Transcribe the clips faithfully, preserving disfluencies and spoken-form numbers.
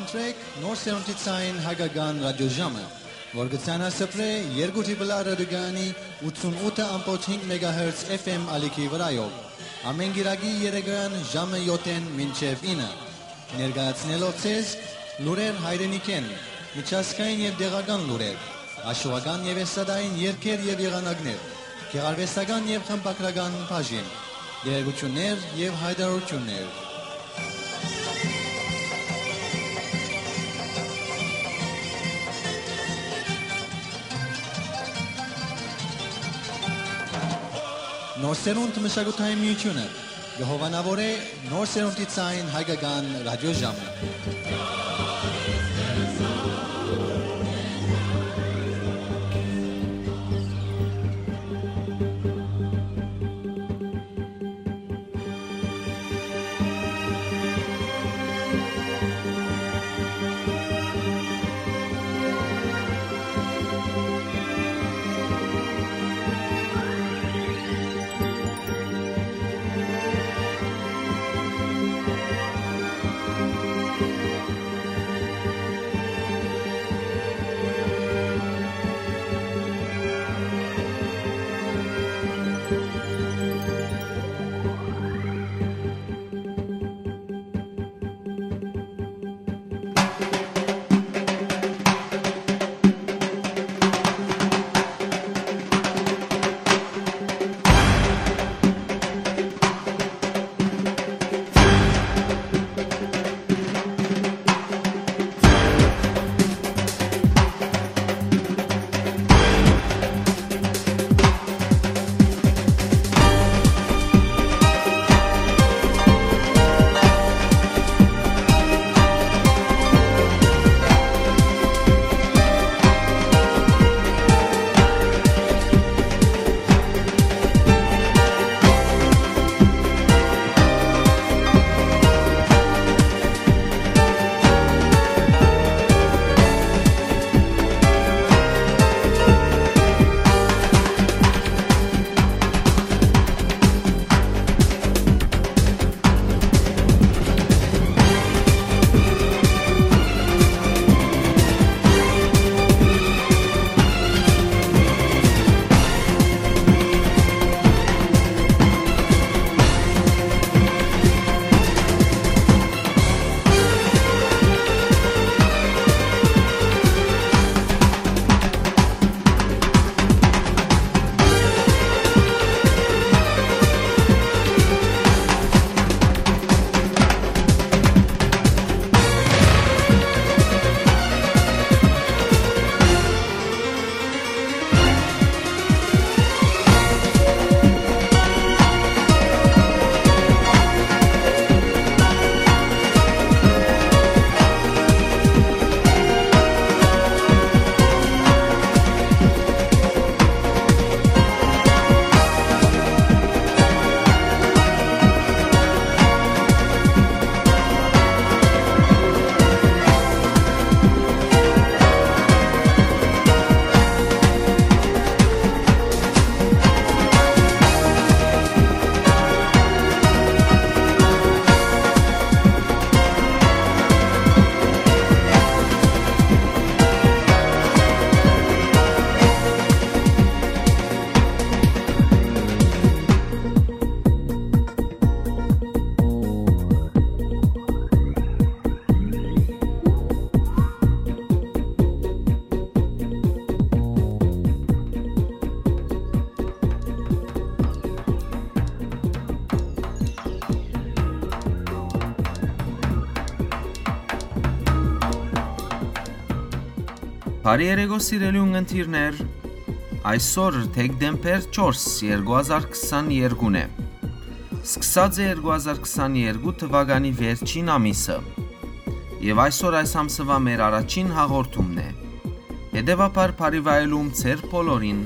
Սրեք Նոր Սերունդի Ցայն Հայկական Ռադիոժամը, որ կը ցանասփռէ երկու Տրիպլ Ա ռադիոկայանի ութսուն ութը ամբողջ հինգ մեգահերց F M ալիքի վրայով, ամէն կիրակի երեկոյեան ժամը յոթ մինչեւ ինը, ներկայացնելով ձեզ լուրեր հայրենիքէն, միջազգային եւ տեղական լուրեր, աշուական եւ էստրադային երգեր եւ եղանակներ, գեղարուեստական եւ խմբագրական բաժին, տեղեկութիւններ եւ յայտարարութիւններ։ Նոր Սերունդ մշակութային միութիւնը կը հովանաւորէ Նոր Սերունդի Ցայն Հայկական Ռադիոժամը։ Բարի երեկո, սիրելի ունգընտիրներ։ Այսօր դեկտեմբեր չորս, երկու հազար քսաներկուն է։ Սկսած է երկու հազար քսաներկու թուականի վերջին ամիսը։ Եւ այսօր այս ամսուայ մեր առաջին հաղորդումն է։ Հետեւաբար, բարի վայելում ձեր բոլորին։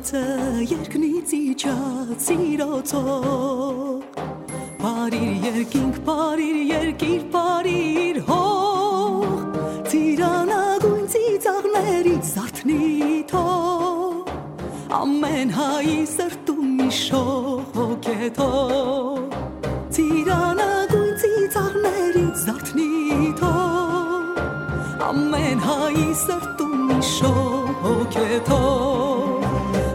Երկնից իջած սիրոց հող, բարիր երկինք, բարիր երկիր, բարիր հող, ծիրանագույն ծիծաղներիդ զարթնի թող, ամեն հայի սրտում իշող հոգեթող, ծիրանագույն ծիծաղներիդ զարթնի թող, ամեն հայի սրտում իշող հոգեթող,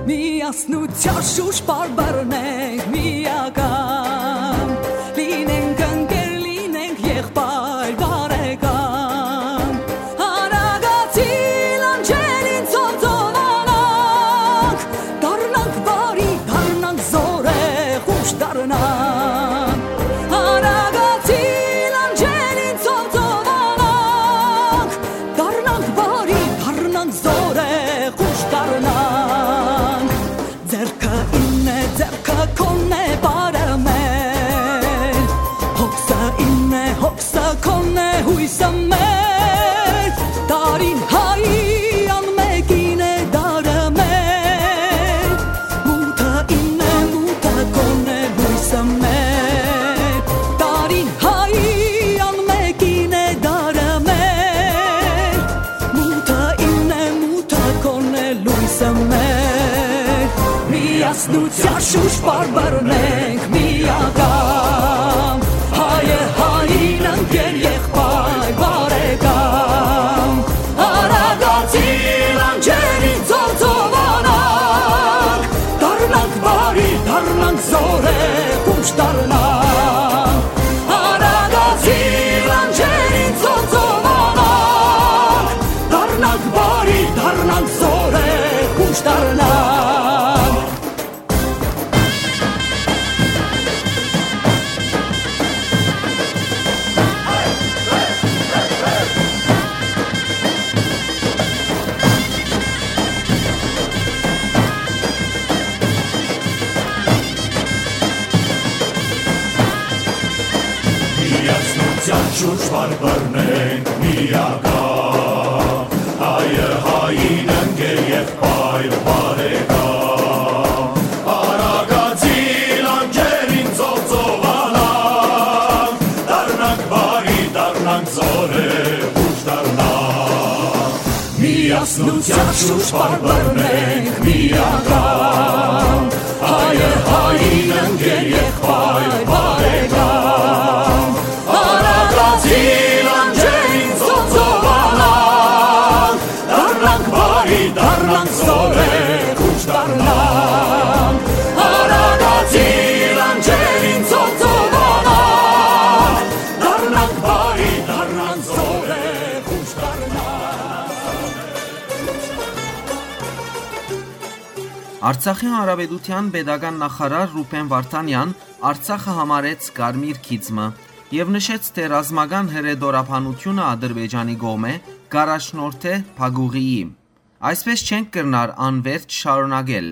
միասնության շուրջ պարբերնենք միական, լինենք ընկեր, լինենք եղբայր բարեկամ, արագացի լանջերին ծովծովանանք, դառնանք բարի, դառնանք զորեղ, ուշ դառնանք, արագացի լանջերին ծովծովանանք, դառնանք բարի, դառնանք զորեղ, ուշ դառնանք։ Ձեռքը իմն է, ձեռքը քոնն է, բարը մեր, հոգսը իմն է, հոգսը քոնն է, հոյսը մեր, տարին հայի անմեկին է, դարը մեր, մութը իմն է, մութը քոնն է, հոյսը մեր, տարին հայի անմեկին է, դարը մեր, մութը իմն է, մութը քոնն է, լոյսը մեր, միասնության շուրջ պարբերնենք միական, հայը հային ընկեր եղբայր բարեկամ, արագացի լանջերին ծովծովանանք, դառնանք բարի, դառնանք զորեղ, ուշ դառնանք, արագացի լանջերին ծովծովանանք, դառնանք բարի, դառնանք զորեղ, ուշ դառնանք։ Միասնության շուրջ պարբերնենք միական, հայը հային ընկեր եղբայր բարեկամ, արագացի լանջերին ծովծովանանք, դառնանք բարի, դառնանք զորեղ, ուշ դառնանք, միասնության շուրջ պարբերնենք միական, հայը հային ընկեր եղբայր բարեկամ, արագացի լանջերին ծովծովանանք, դառնանք բարի, դառնանք զորեղ, ուշ դառնանք, արագացի լանջերին ծովծովանանք, դառնանք բարի, դառնանք զորեղ, ուշ դառնանք։ Արցախի Հանրապետության պետական նախարար Ռուբեն Վարդանեան Արցախը համարեց կարմիր գիծ մը եւ նշեց, թէ ռազմական հրետորաբանութիւնը Ադրբեջանի կողմէ կ'առաջնորդէ փակուղիի։ Այսպէս չենք կրնար անվերջ շարունակել։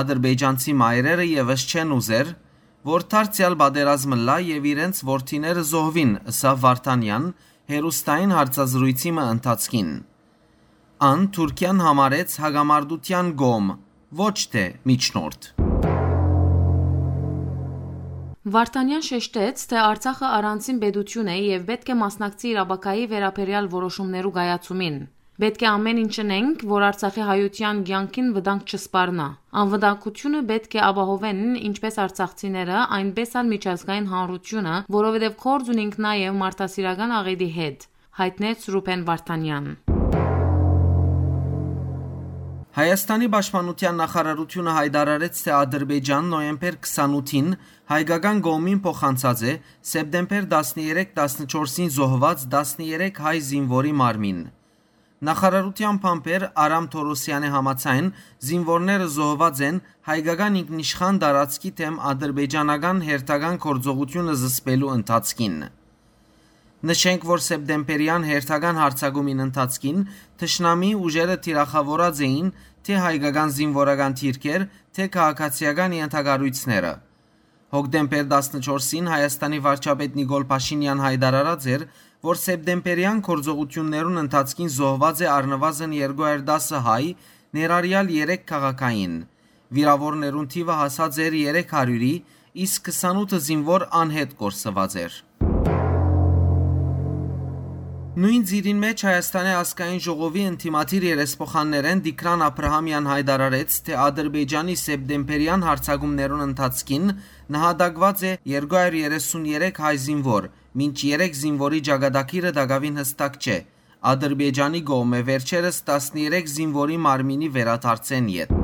Ադրբեջանցի մայրերը եւս չեն ուզեր, որ դարձեալ պատերազմ ըլլայ եւ իրենց որդիները զոհուին, ըսաւ Վարդանեան հեռուստային հարցազրոյցի մը ընթացքին։ Ան Թուրքիան համարեց հակամարտութեան կողմ, ոչ թէ միջնորդ։ Վարդանեան շեշտեց, թէ Արցախը առանձին պետութիւն է եւ պէտք է մասնակցի իր ապագայի վերաբերեալ որոշումներու կայացումին։ Պէտք է ամէն ինչ ընենք, որ Արցախի հայութեան կեանքին վտանգ չսպառնայ։ Անվտանգութիւնը պէտք է ապահովեն ինչպէս արցախցիները, այնպէս ալ միջազգային հանրութիւնը, որովհետեւ գործ ունինք նաեւ մարդասիրական աղէտի հետ, յայտնեց Ռուբեն Վարդանեան։ Հայաստանի պաշտպանութեան նախարարութիւնը յայտարարեց, թէ Ադրբեջան նոյեմբեր քսանութին հայկական կողմին փոխանցած է սեպտեմբեր տասներեք տասնչորսին զոհուած տասներեք հայ զինուորի մարմին։ Նախարարութեան բանբեր Արամ Թորոսեանի համաձայն, զինուորները զոհուած են հայկական ինքնիշխան տարածքի դէմ ադրբեջանական հերթական գործողութիւնը զսպելու ընթացքին։ Նշենք, որ սեպտեմբերեան հերթական յարձակումին ընթացքին թշնամիի ուժերը թիրախաւորած էին թէ հայկական զինուորական դիրքեր, թէ քաղաքացիական ենթակառոյցները։ Հոկտեմբեր տասնչորսին Հայաստանի վարչապետ Նիկոլ Փաշինեան յայտարարած էր, որ սեպտեմբերեան գործողութիւններուն ընթացքին զոհուած է առնուազն երկու հարյուր տասը հայ, ներառեալ երեք քաղաքային։ Վիրաւորներուն թիւը հասած էր երեք հարիւրի, իսկ քսանութ զինուոր անհետ կորսուած էր։ Նոյն ծիրին մէջ Հայաստանի ազգային ժողովի ընդդիմադիր երեսփոխաններէն Տիգրան Աբրահամեան յայտարարեց, թէ Ադրբեջանի սեպտեմբերեան յարձակումներուն ընթացքին նահատակուած է երկու հարիւր երեսուն երեք հայ զինուոր, մինչ երեք զինուորի ճակատագիրը տակաւին յստակ չէ։ Ադրբեջանի կողմէ վերջերս տասներեք զինուորի մարմինի վերադարձէն ետք։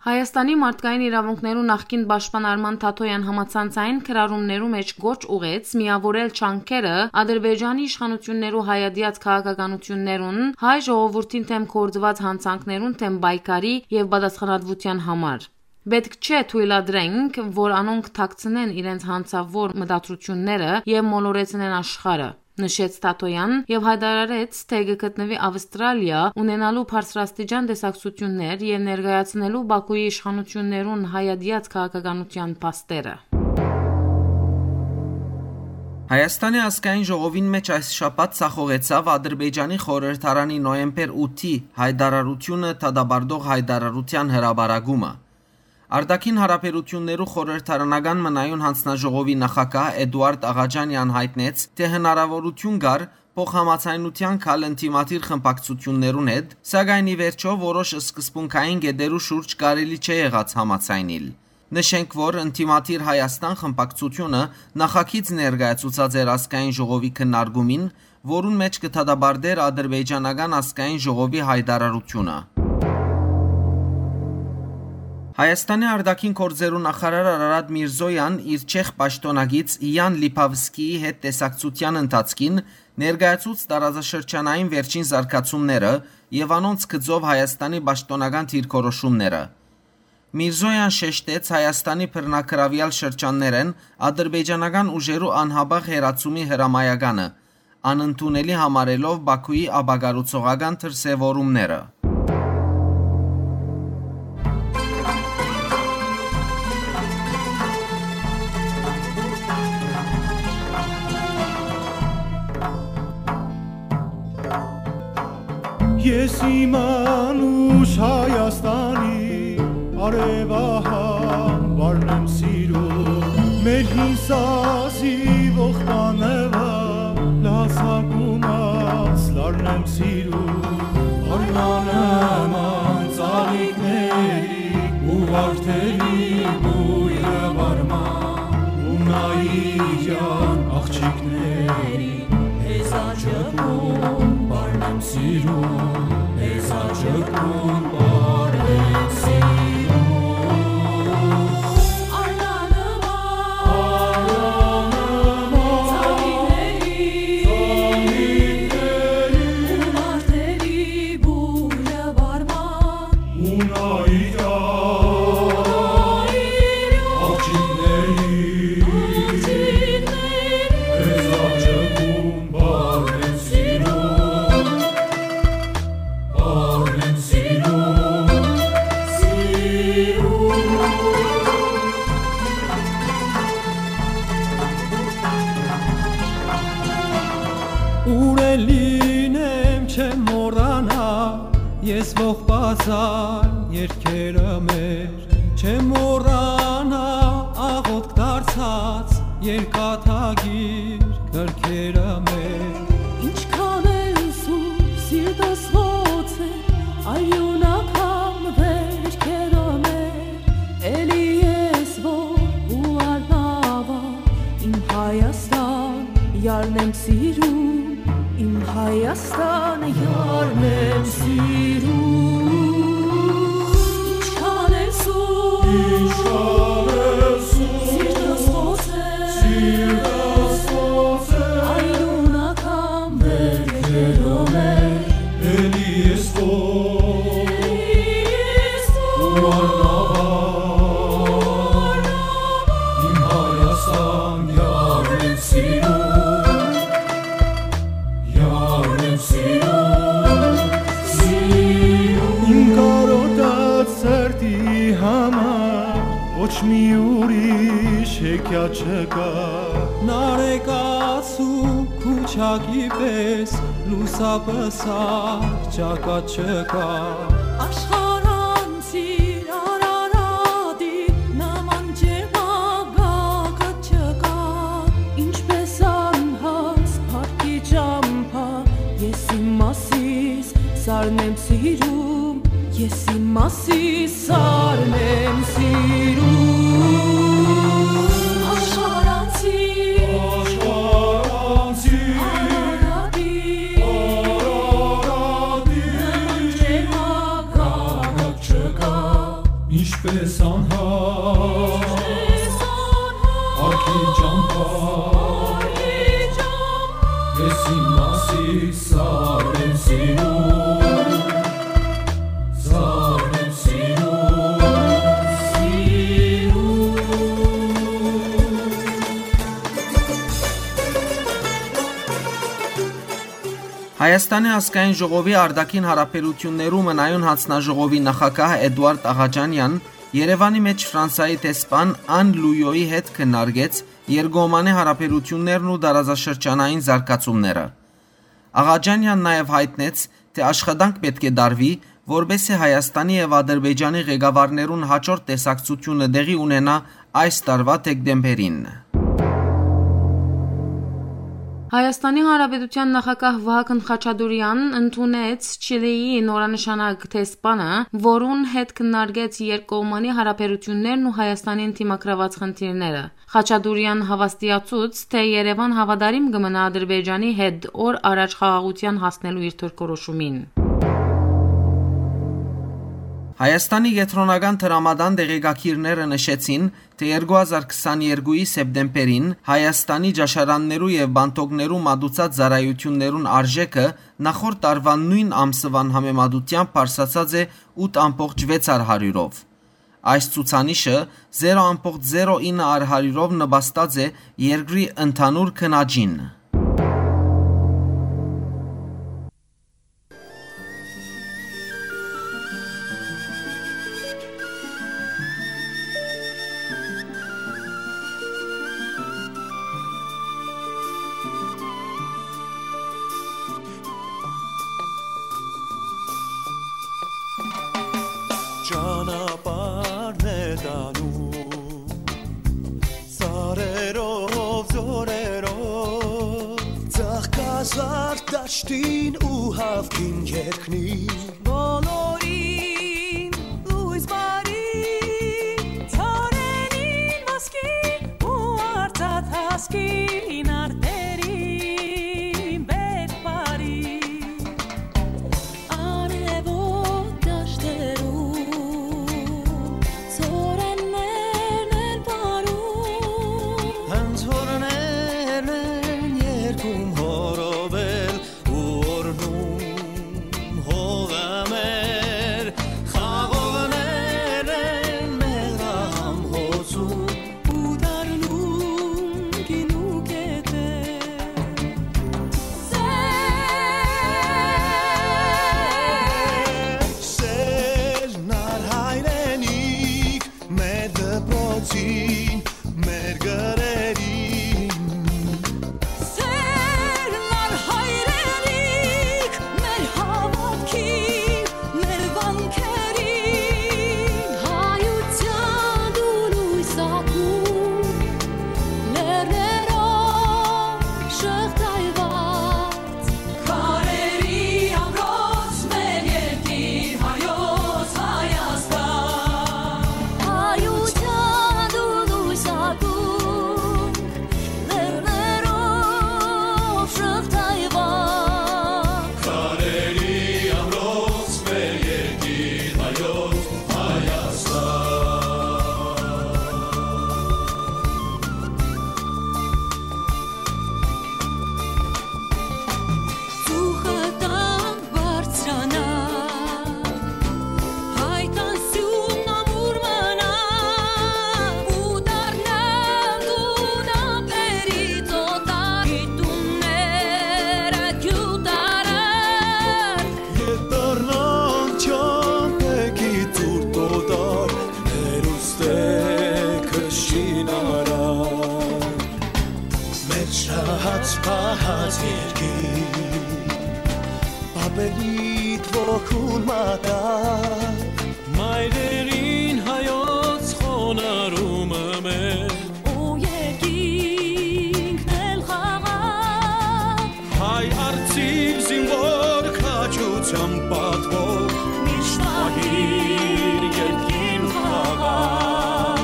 Հայաստանի մարդկային իրաւունքներու նախկին պաշտպան Արման Թաթոյեան համացանցային գրառումներու մէջ կոչ ուղղեց միաւորել ջանքերը Ադրբեջանի իշխանութիւններու հայատեաց քաղաքականութիւններուն, հայ ժողովուրդին դէմ գործուած յանցանքներուն դէմ պայքարի եւ պատասխանատուութեան համար։ «Պէտք չէ թոյլատրենք, որ անոնք թաքցնեն իրենց յանցաւոր մտադրութիւնները եւ մոլորեցնեն աշխարհը», նշեց Թաթոյեան եւ յայտարարեց, թէ կը գտնուի Աւստրալիա, ունենալու բարձրաստիճան տեսակցութիւններ եւ ներկայացնելու Բաքուի իշխանութիւններուն հայատեաց քաղաքականութեան փաստերը։ Հայաստանի ազգային ժողովին մէջ այս շաբաթ ձախողեցաւ Ադրբեջանի խորհրդարանի նոյեմբեր ութի յայտարարութիւնը դատապարտող յայտարարութեան հրապարակումը։ Արտաքին հարաբերութիւններու խորհրդարանական մնայուն յանձնաժողովի նախագահ Էդուարդ Աղաջանեան յայտնեց, թէ հնարաւորութիւն կար փոխհամաձայնութեան գալ ընդդիմադիր խմբակցութիւններուն հետ, սակայն ի վերջոյ որոշ սկզբունքային կետերու շուրջ կարելի չէ եղած համաձայնիլ։ Նշենք, որ Ընդդիմադիր Հայաստան խմբակցութիւնը նախագիծ ներկայացուցած էր ազգային ժողովի քննարկումին, որուն մէջ կը դատապարտէր ադրբեջանական ազգային ժողովի յայտարարութիւնը։ Հայաստանի արտաքին գործերու նախարար Արարատ Միրզոյան իր չեխ պաշտօնակից Յան Լիփավսկիի հետ տեսակցութեան ընթացքին ներկայացուց տարածաշրջանային վերջին զարգացումները եւ անոնց գծով Հայաստանի պաշտօնական դիրքորոշումները։ Միրզոյան շեշտեց Հայաստանի բռնագրաւեալ շրջաններէն ադրբեջանական ուժերու անհապաղ հեռացումի հրամայականը, անընդունելի համարելով Բաքուի ապակառուցողական դրսեւորումները։ Ես իմ անուշ Հայաստանի արեւահան վարն եմ սիրում, մեր հին սազի ողբանեվա լացակումած լարն եմ սիրում, արնանման ծաղիկների ու վարդերի բոյրը վարման ու նայիրյան աղջիկների Հեզաճկուն պարն եմ սիրում, հեզաճկուն պարն եմ սիրում։ Արնանման, արնանման, ծաղիկների, ծաղիկների, ու մարտերի բույրը վարման, ու նայիրան, աղջիկների, աղջիկների, հեզաճկուն պարն եմ սիրում, պարն եմ սիրում, սիրում։ Ուր էլ լինեմ, չեմ մոռանա, ես ողբազան երկերը մեր, չեմ մոռանա աղոթք դարձած երկաթագիր գրքերը մեր։ Ինչքան էլ սուր սիրտս ոնց է, արիւնական վերքերը մեր, էլի ես որ ու արնավա, իմ Հայաստան, յարն եմ սիրում, իմ Հայաստան, յարն եմ սիրում։ Ինչքան է սուր, ինչքան է սուր, սիրտս ոնց է, սիրտս ոնց է, արիւնական վերքերով է, էլի ես քո, էլի ես քո, ու անհավան, իմ Հայաստան, յարն եմ սիրում, յարն եմ սիրում, սիրում։ Իմ կարոտած սրտի համար ոչ մի ուրիշ հեքիաթ չկա։ Նարեկացու քուչակի պէս լուսապսակ ճակատ չկա։ Աշխարհ Ես իմ մասիս սարն եմ սիրում, ես իմ մասիս սարն եմ սիրում։ Աշխարհանցի, աշխարհանցի, Արարատի, Արարատի, նման ճեմագակ չկայ։ Ինչպես անհատ, ինչպես անհատ, արքի ճամբայ, արքի ճամբայ, ես իմ մասիս սարն եմ սիրում, սարն եմ սիրում, սիրում։ Հայաստանի ազգային ժողովի արտաքին հարաբերութիւններու մնայուն հանձնաժողովի նախագահ Էդուարդ Աղաճանեան Երեւանի մէջ Ֆրանսայի դեսպան Ան Լույոյի հետ քննարկեց երկկողմանի հարաբերութիւններն ու տարածաշրջանային զարգացումները։ Աղաճանեան նաեւ յայտնեց, թէ աշխատանք պէտք է տարուի, որպէս զի Հայաստանի եւ Ադրբեջանի ղեկավարներուն հաջորդ տեսակցութիւնը տեղի ունենայ այս տարուայ դեկտեմբերին։ Հայաստանի Հանրապետութեան նախագահ Վահագն Խաչատուրեան ընդունեց Չիլիի նորանշանակ դեսպանը, որուն հետ քննարկեց երկկողմանի հարաբերութիւններն ու Հայաստանին դիմագրաւած խնդիրները։ Խաչատուրեան հաւաստիացուց, թէ Երեւան հաւատարիմ կը մնայ Ադրբեջանի հետ օր առաջ խաղաղութեան հասնելու իր դիրքորոշումին։ Հայաստանի կեդրոնական դրամատան տեղեկագիրները նշեցին, թէ երկու հազար քսաներկուի սեպտեմբերին Հայաստանի ճաշարաններու եւ պանթոկներու մատուցած ծառայութիւններուն արժէքը նախորդ տարուան նոյն ամսուան համեմատութեամբ բարձրացած է ութ ամբողջ վեց հարիւրով։ Այս ցուցանիշը զերո ամբողջ զերո ինը հարիւրով նպաստած է երկրի ընդհանուր գնաճին։ Ճանապարհն է տանում սարերով, ձորերով, ծաղկազարդ դաշտին ու հաւքին երկնին։ Բոլորին լոյս բարի, ծառերին ոսկի ու արծաթ հասկին արտերին բերք բարի։ Արեւոտ դաշտերուն, ծորեններն են պարում։ Անցորներն են երգում հորովել ու օրհնում հողը մեր, խաղողներն են մեր ահամբոցում ու դառնում գինու կետեր։ Սեր, սեր, նար հայրենիք, մեր դպրոցին, մեր գրերին։ Սեր, նար հայրենիք, մեր հաւատքին, մեր վանքերին, հայութեան դու լոյս ակում, լեռներով շղթայված, քարերի ամրոց մեր երկիր հայոց Հայաստան։ Հայութեան դու լոյս ակում, լեռներով շղթայված։ Քարերի ամրոց մեր երկիր հայոց Հայաստան։ Ծուխը տան բարձրանայ, հայ տան սիւնն ամուր մնայ, ու դառնալ տուն ափերի ծոտայ, գիտունները գյուտարար։ Ետ դառնան չամպեքի ծուրտ օտար, հերուստե քշին արար։ Մեր շահած պահած երկիր, պապերիդ ոգուն մատաղ, մայրերին հայոց խոնարհումը մեր, ու երկինքն էլ խաղաղ։ Հայ արծիվ զինվոր Ան պատվով միշտ պահիր երկրին խաղաղ։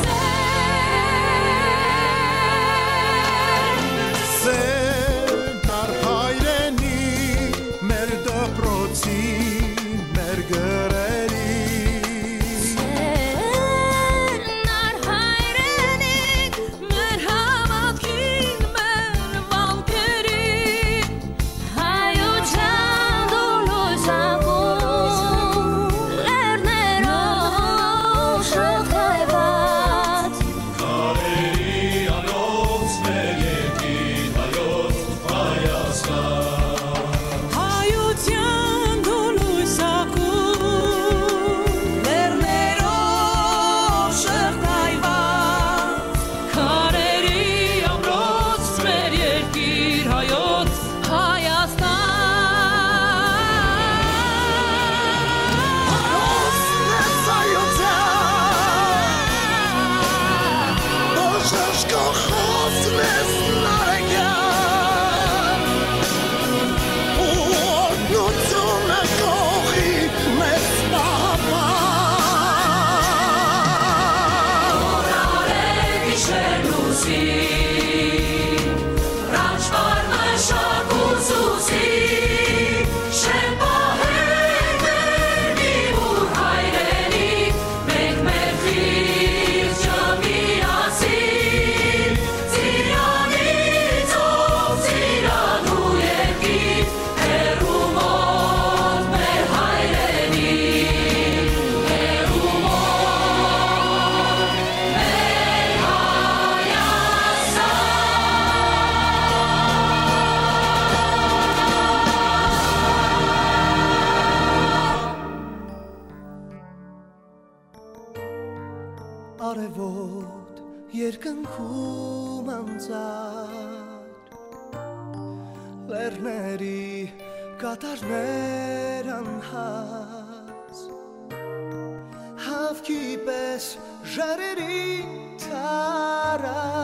Սեր, սեր, տար հայրենի, մեր դպրոցի, մեր գրերի։ Սեր, նար հայրենի, մեր հաւատքին, մեր վանքերի, հայութեան դու լոյս ակու, լեռներով շղթայուած։ Քարերի անոց մեր երկիր հայոց Հայաստան։ Հայութեան դու լոյս ակու, լեռներով շղթայուած, քարերի ամրոց մեր երկիր հայոց Հայաստան։ Հոսնես հայութեան, բժշկոխոսնես նարեկեան, օրհնությունը կողի մեծ պահապան։ Օրարե գիշեր լուսին, Ռաչվար մշակ ուսուցի, շէն պահենք մեր միմուր հայրենիք, մենք մեր խիղճը միասին, ծիրանի ծով, ծիրանու երկիր, հեռու մոտ մեր հայրենիք, հեռու մոտ մեր Հայաստան։ Արեւոտ երկնքում անցած, լեռների կատարներ անհաս, հաւքի պէս ժայռերին տարած,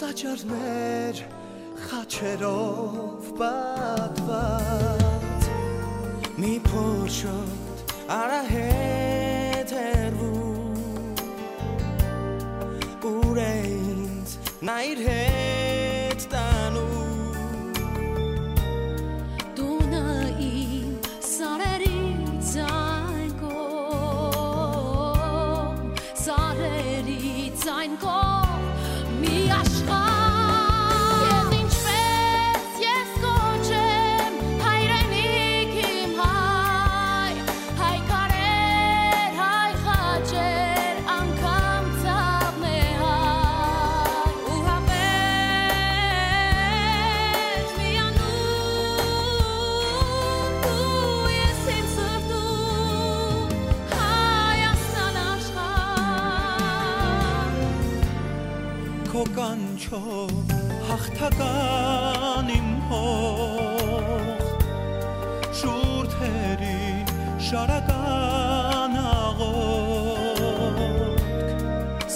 տաճարներ խաչերով պատված, մի փոքր արահետ հեռվում, ուր է ինձ նա իր հետ տանում։ Տունը իմ սարերից այն կողմ, սարերից այն կողմ, մի աշխարհ։ Քեզ ինչպես ես կոչեմ, հայրենիք իմ հայ, հայ քարեր, հայ խաչեր, անգամ ցաւն է հայ, ու հապեր միանում դու ես իմ սրտում, Հայաստան աշխարհ։ Քո կանչով հաղթական իմ հող, շուրթերին շարական աղոթք,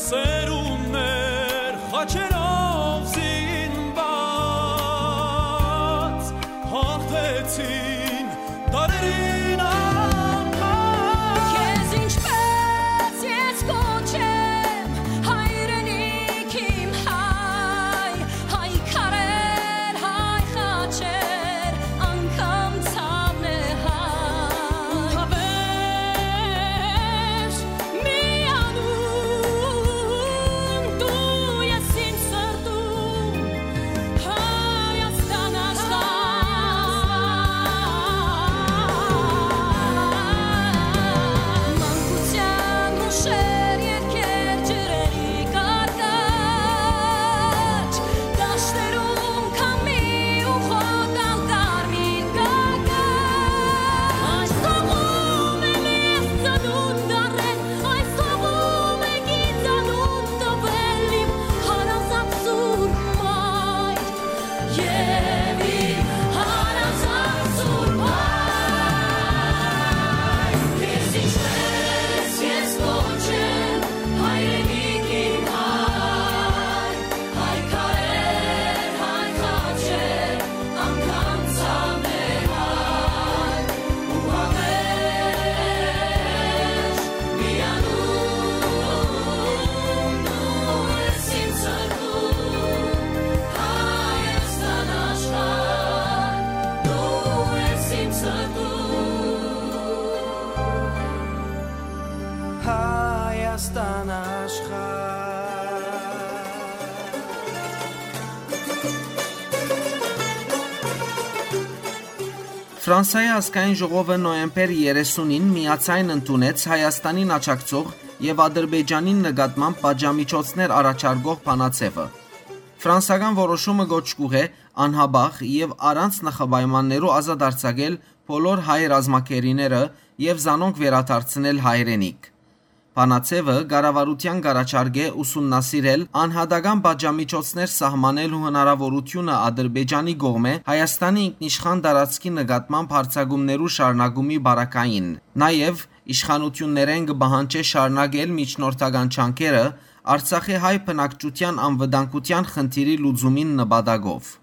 սերունդներ խաչերով զինված, հաղթեցին դարերին անգամ։ Քեզ ինչպես ես կոչեմ, հայրենիք իմ հայ, հայ քարեր, հայ խաչեր, անգամ ցաւն է հայ, ու հապեր միանում դու ես իմ սրտում, Հայաստան աշխարհ։ Ֆրանսայի ազգային ժողովը նոյեմբեր երեսունին միաձայն ընդունեց Հայաստանին աջակցող եւ Ադրբեջանին նկատմամբ պատժամիջոցներ առաջարկող բանաձեւը։ Ֆրանսական որոշումը կոչ կուղղէ անհապաղ եւ առանց նախապայմաններու ազատ արձակել բոլոր հայ ռազմագերիները եւ զանոնք վերադարձնել հայրենիք։ Բանաձեւը կառավարութեան կ'առաջարկէ ուսումնասիրել անհատական պատժամիջոցներ սահմանելու հնարաւորութիւնը Ադրբեջանի կողմէ Հայաստանի ինքնիշխան տարածքի նկատմամբ հարձակումներու շարունակումի պարագային։ Նաեւ իշխանութիւններէն կը պահանջէ շարունակել միջնորդական ջանքերը Արցախի հայ բնակչութեան անվտանգութեան խնդիրի լուծումին նպատակով։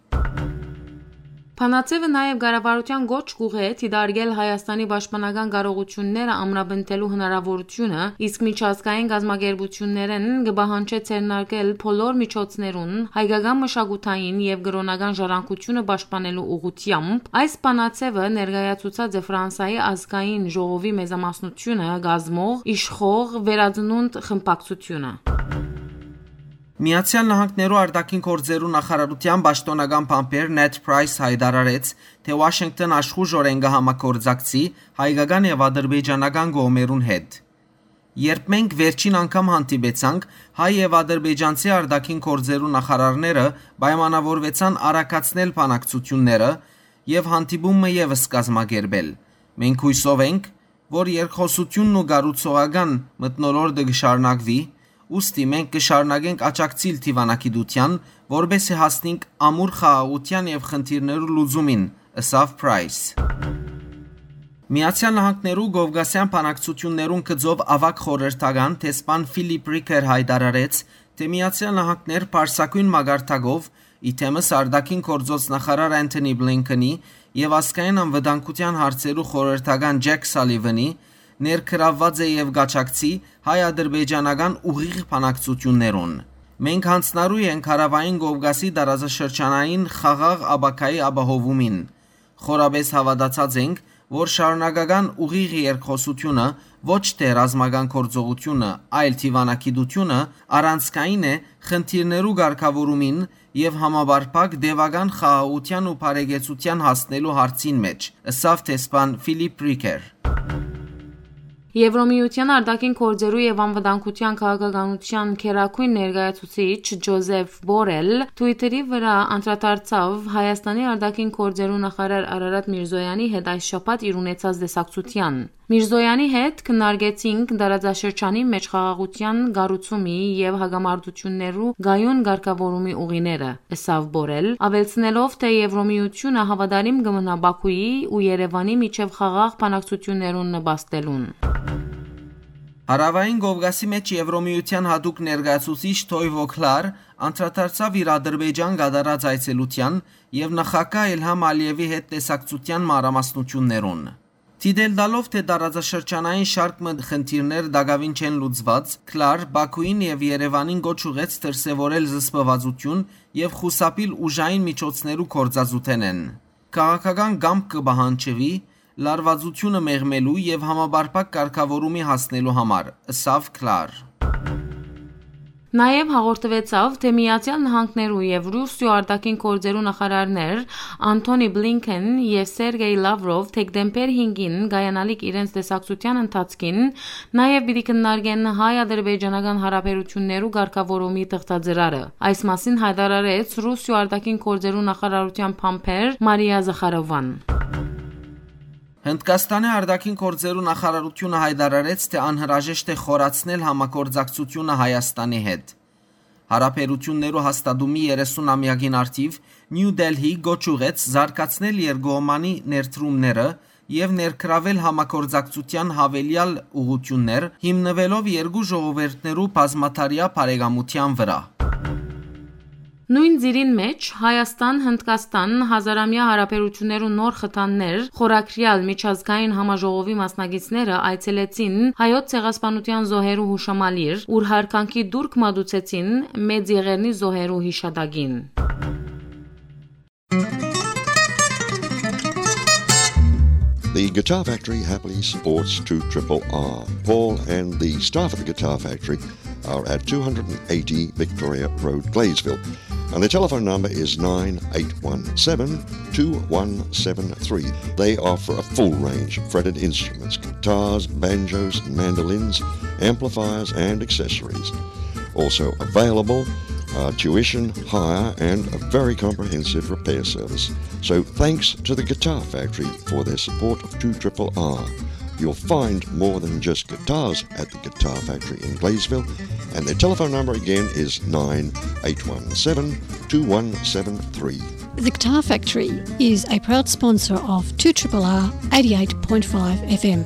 Բանաձեւը նաեւ կառավարութեան կոչ կուղղէ դիտարկել Հայաստանի պաշտպանական կարողութիւնները ամրապնդելու հնարաւորութիւնը, իսկ միջազգային կազմակերպութիւններէն կը պահանջէ ձեռնարկել բոլոր միջոցներուն հայկական մշակութային եւ կրօնական ժառանգութիւնը պաշտպանելու ուղղությամբ։ Այս բանաձեւը ներկայացուցած է Ֆրանսայի ազգային ժողովի մեծամասնությունը կազմող իշխող Վերածնունդ խմբակցութիւնը։ Միացեալ Նահանգներու արտաքին գործերու նախարարութեան պաշտօնական բանբեր Նեթ Պրայս յայտարարեց, թէ Ուաշինկտոն աշխուժօրէն կը համագործակցի հայկական եւ ադրբեջանական կողմերուն հետ։ Երբ մենք վերջին անգամ հանդիպեցանք, հայ եւ ադրբեջանցի արտաքին գործերու նախարարները պայմանավորուեցան արագացնել բանակցութիւնները եւ հանդիպումը եւս կազմակերպել։ Մենք յուսով ենք, որ երկխօսութիւնն ու կառուցողական մթնոլորտը կը շարունակուի, ուստի մենք կը շարունակենք աջակցիլ դիւանագիտութեան, որպէսզի հասնենք ամուր խաղաղութեան եւ խնդիրներու լուծումին, ըսաւ Պրայս։ Միացեալ Նահանգներու Կովկասեան բանակցութիւններուն գծով աւագ խորհրդական դեսպան Ֆիլիպ Ռիքեր յայտարարեց, թէ Միացեալ Նահանգներ պարսագոյն մակարդակով, ի թեմս արտաքին գործոց նախարար Անթոնի Բլինքենի եւ ազգային անվտանգութեան հարցերու խորհրդական Ջեք Սալիվանի, ներգրաւուած է եւ կ'աջակցի հայ-ադրբեջանական ուղիղ բանակցութիւններուն։ Մենք յանձնառու ենք Հարաւային Կովկասի տարածաշրջանային խաղաղ ապագայի ապահովումին։ Խորապէս հաւատացած ենք, որ շարունակական ուղիղ երկխօսութիւնը, ոչ թէ ռազմական գործողութիւնը, այլ դիւանագիտութիւնը, առանցքային է խնդիրներու կարգաւորումին եւ համապարփակ տեւական խաղաղութեան ու բարեկեցութեան հասնելու հարցին մէջ, ըսաւ դեսպան Ֆիլիպ Ռիքեր։ Եվրոմիության արտաքին գործերու եւ անվտանգութեան քաղաքականութեան գերագույն ներկայացուցիչ Ջոզեֆ Բորել Twitter-ի վրա անդրադարձաւ Հայաստանի արտաքին գործերու նախարար Արարատ Միրզոյանի հետ այս շաբաթ իր ունեցած տեսակցութեան։ «Միրզոյանի հետ քննարկեցինք տարածաշրջանի մէջ խաղաղութեան կառուցումի եւ հակամարտութիւններու կայուն կարգաւորումի ուղիները», ըսաւ Բորել, աւելցնելով, թէ Եվրոմիությունը հաւատարիմ կը մնայ Բաքուի ու Երեւանի միջեւ խաղաղ բանակցութիւններուն նպաստելուն։ Հարաւային Կովկասի մէջ Եվրոմիության յատուկ ներկայացուցիչ Թոյ Վոքլար անդրադարձաւ իր Ադրբեջան կատարած այցելութեան եւ նախագահ Իլհամ Ալիեւի հետ տեսակցութեան մանրամասնութիւններուն։ Դիտել տալով, թէ տարածաշրջանային շարք մը խնդիրներ տակաւին չեն լուծուած, Քլար Բաքուին եւ Երեւանին կոչ ուղղեց դրսեւորել զսպվածութիւն եւ խուսափիլ ուժային միջոցներու գործածութենէն։ Քաղաքական կամք կը պահանջուի լարվածութիւնը մեղմելու եւ համապարփակ կարգաւորումի հասնելու համար, ըսաւ Քլար։ Նաեւ հաղորդուեցաւ, թէ Միացեալ Նահանգներու եւ Ռուսիոյ արտաքին գործերու նախարարներ Անթոնի Բլինքեն եւ Սերգեյ Լավրով դեկտեմբեր հինգին կայանալիք իրենց տեսակցութեան ընթացքին նաեւ պիտի քննարկեն հայ-ադրբեջանական հարաբերութիւններու կարգաւորումի թղթածրարը։ Այս մասին յայտարարեց Ռուսիոյ արտաքին գործերու նախարարութեան բանբեր Մարիա Զախարովան։ Հնդկաստանի արտաքին գործերու նախարարութիւնը յայտարարեց, թէ անհրաժեշտ է խորացնել համագործակցութիւնը Հայաստանի հետ։ Հարաբերութիւններու հաստատումի երեսուն ամեակին առթիւ Նիու Դելհի կոչ ուղղեց զարգացնել երկկողմանի ներդրումները եւ ներգրաւել համագործակցութեան յաւելեալ ուղղութիւններ, հիմնուելով երկու ժողովուրդներու բազմադարեայ բարեկամութեան վրա։ Նոյն ծիրին մէջ Հայաստան-Հնդկաստան հազարամեայ հարաբերութիւններու նոր խթաններ խորագրեալ միջազգային համաժողովի մասնակիցները այցելեցին Հայոց ցեղասպանութեան զոհերու յուշամալիր, ուր յարգանքի տուրք մատուցեցին Մեծ Եղեռնի զոհերու յիշատակին։ The Guitar Factory happily sports two triple R. Paul and the staff at the Guitar Factory are at two hundred eighty Victoria Road, Gladesville. And the telephone number is nine eight one seven two one seven three. They offer a full range of fretted instruments, guitars, banjos, mandolins, amplifiers, and accessories. Also available are tuition, hire, and a very comprehensive repair service. So thanks to the Guitar Factory for their support of two triple R. You'll find more than just guitars at the Guitar Factory in Gladesville, and their telephone number again is nine eight one seven two one seven three. The Guitar Factory is a proud sponsor of two triple R eighty-eight point five F M.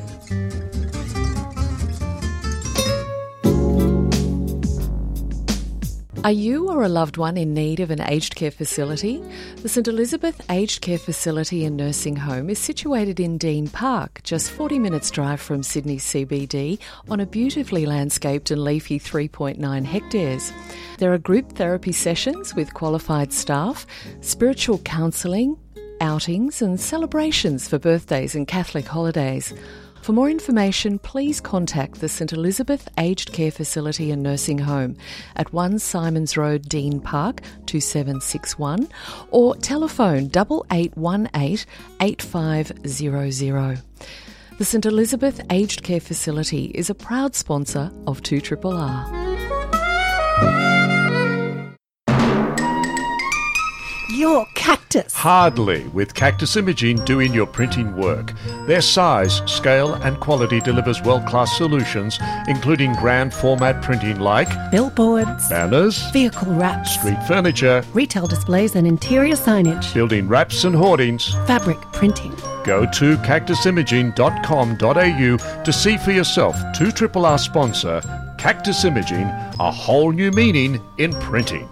Are you or a loved one in need of an aged care facility? The St Elizabeth Aged Care Facility and Nursing Home is situated in Dean Park, just forty minutes' drive from Sydney C B D, on a beautifully landscaped and leafy three point nine hectares. There are group therapy sessions with qualified staff, spiritual counselling, outings and celebrations for birthdays and Catholic holidays. For more information, please contact the St Elizabeth Aged Care Facility and Nursing Home at one Simons Road, Dean Park, two seven six one, or telephone double eight one eight eight five zero zero. The St Elizabeth Aged Care Facility is a proud sponsor of two triple R. Your Cactus. Hardly, with Cactus Imaging doing your printing work. Their size, scale, and quality delivers world-class solutions, including grand format printing like billboards, banners, vehicle wraps, street furniture, retail displays and interior signage, building wraps and hoardings, fabric printing. Go to cactus imaging dot com dot a u to see for yourself two triple R sponsor Cactus Imaging, a whole new meaning in printing.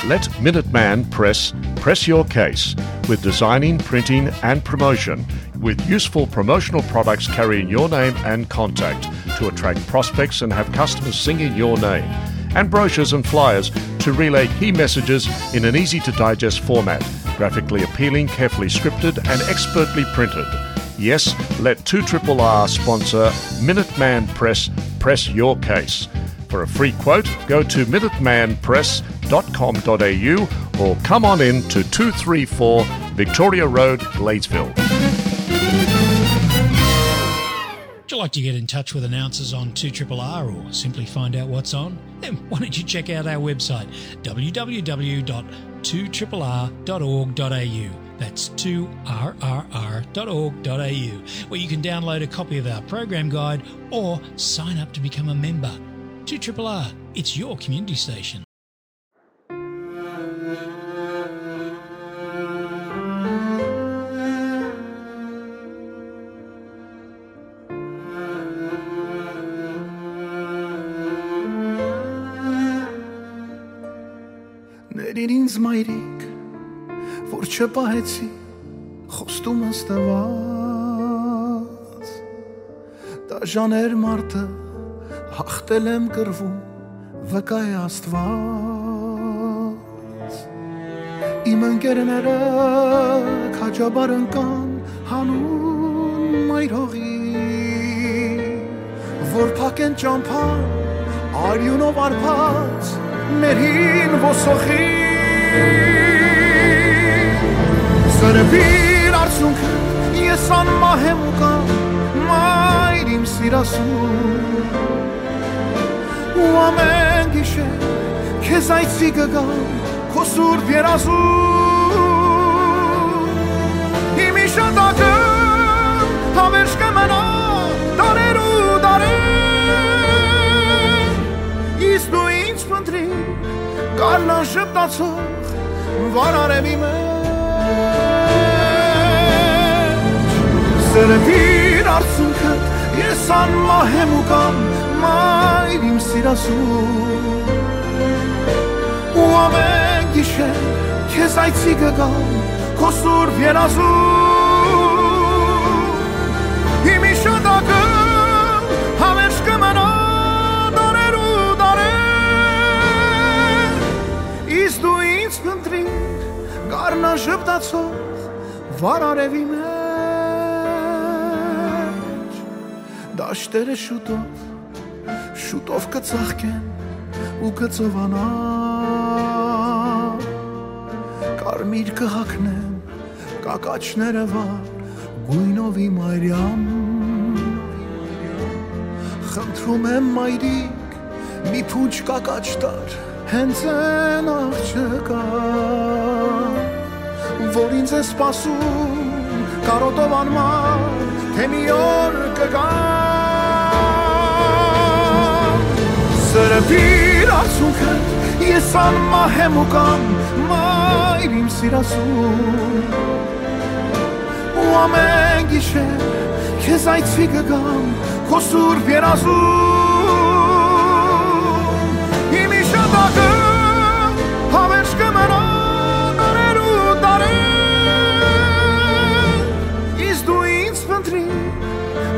Let Minuteman Press press your case with designing, printing, and promotion, with useful promotional products carrying your name and contact to attract prospects and have customers singing your name, and brochures and flyers to relay key messages in an easy-to-digest format, graphically appealing, carefully scripted, and expertly printed. Yes, let two triple R sponsor Minuteman Press press your case. For a free quote, go to minuteman press dot com dot a u or come on in to two three four Victoria Road, Gladesville. Would you like to get in touch with announcers on two triple R or simply find out what's on? Then why don't you check out our website, w w w dot two triple r dot org dot a u. That's two r r r dot org dot a u, where you can download a copy of our program guide or sign up to become a member. two triple R, it's your community station. Ներիր ինձ, մայրիկ, որ չպահեցի խոստումս տված։ Դաժաներ մարդը, հաղթել եմ կռվում, վկայ է Աստված։ Իմ ընկերները քաջաբար ընկան հանուն մայր հողի, որ փակեն ճամփան արիունով արբած մեր հին ոսոխի։ Սրբիր արցունքը, ես անմահ եմ ու կամ, մայր իմ սիրասուն, ու ամեն գիշեր քեզ այցի կգամ քո սուրբ երազում։ Իմ իշատակը հավերժ կը մնա դարեր ու դարեր, իսկ դու ինձ փնտրիր գարնան ժպտացող վարարևի մեջ։ Սրբիր արցունքը, ես անմահ եմ ու կամ, մայր իմ սիրասուն, ու ամեն գիշեր քեզ այցի կգամ քո սուրբ երազում։ Իմ իշատակը հավերժ կը մնա դարեր ու դարեր, իսկ դու ինձ փնտրիր գարնան ժպտացող վարարևի մեջ։ Դա Աշտերը շուտով, շուտով կը ծաղկեն ու կը ծովանան։ Կարմիր կը հագնեմ կակաչները վար գոյնովի մայրյան։ Խնդրում եմ, մայրիկ, մի փունջ կակաչ տար, հենց այն աղջկա, որ ինձ է սպասում կարոտով անմար, թե մի օր կգա։ Սրբիր արցունքդ, ես անմահ եմ ու կամ, մայր իմ սիրասուն, ու ամեն գիշեր քեզ այցի կգամ քո սուրբ երազում։ Իմ իշատակը հավերժ կը մնայ դարեր ու դարեր, իսկ դու ինձ փնտրիր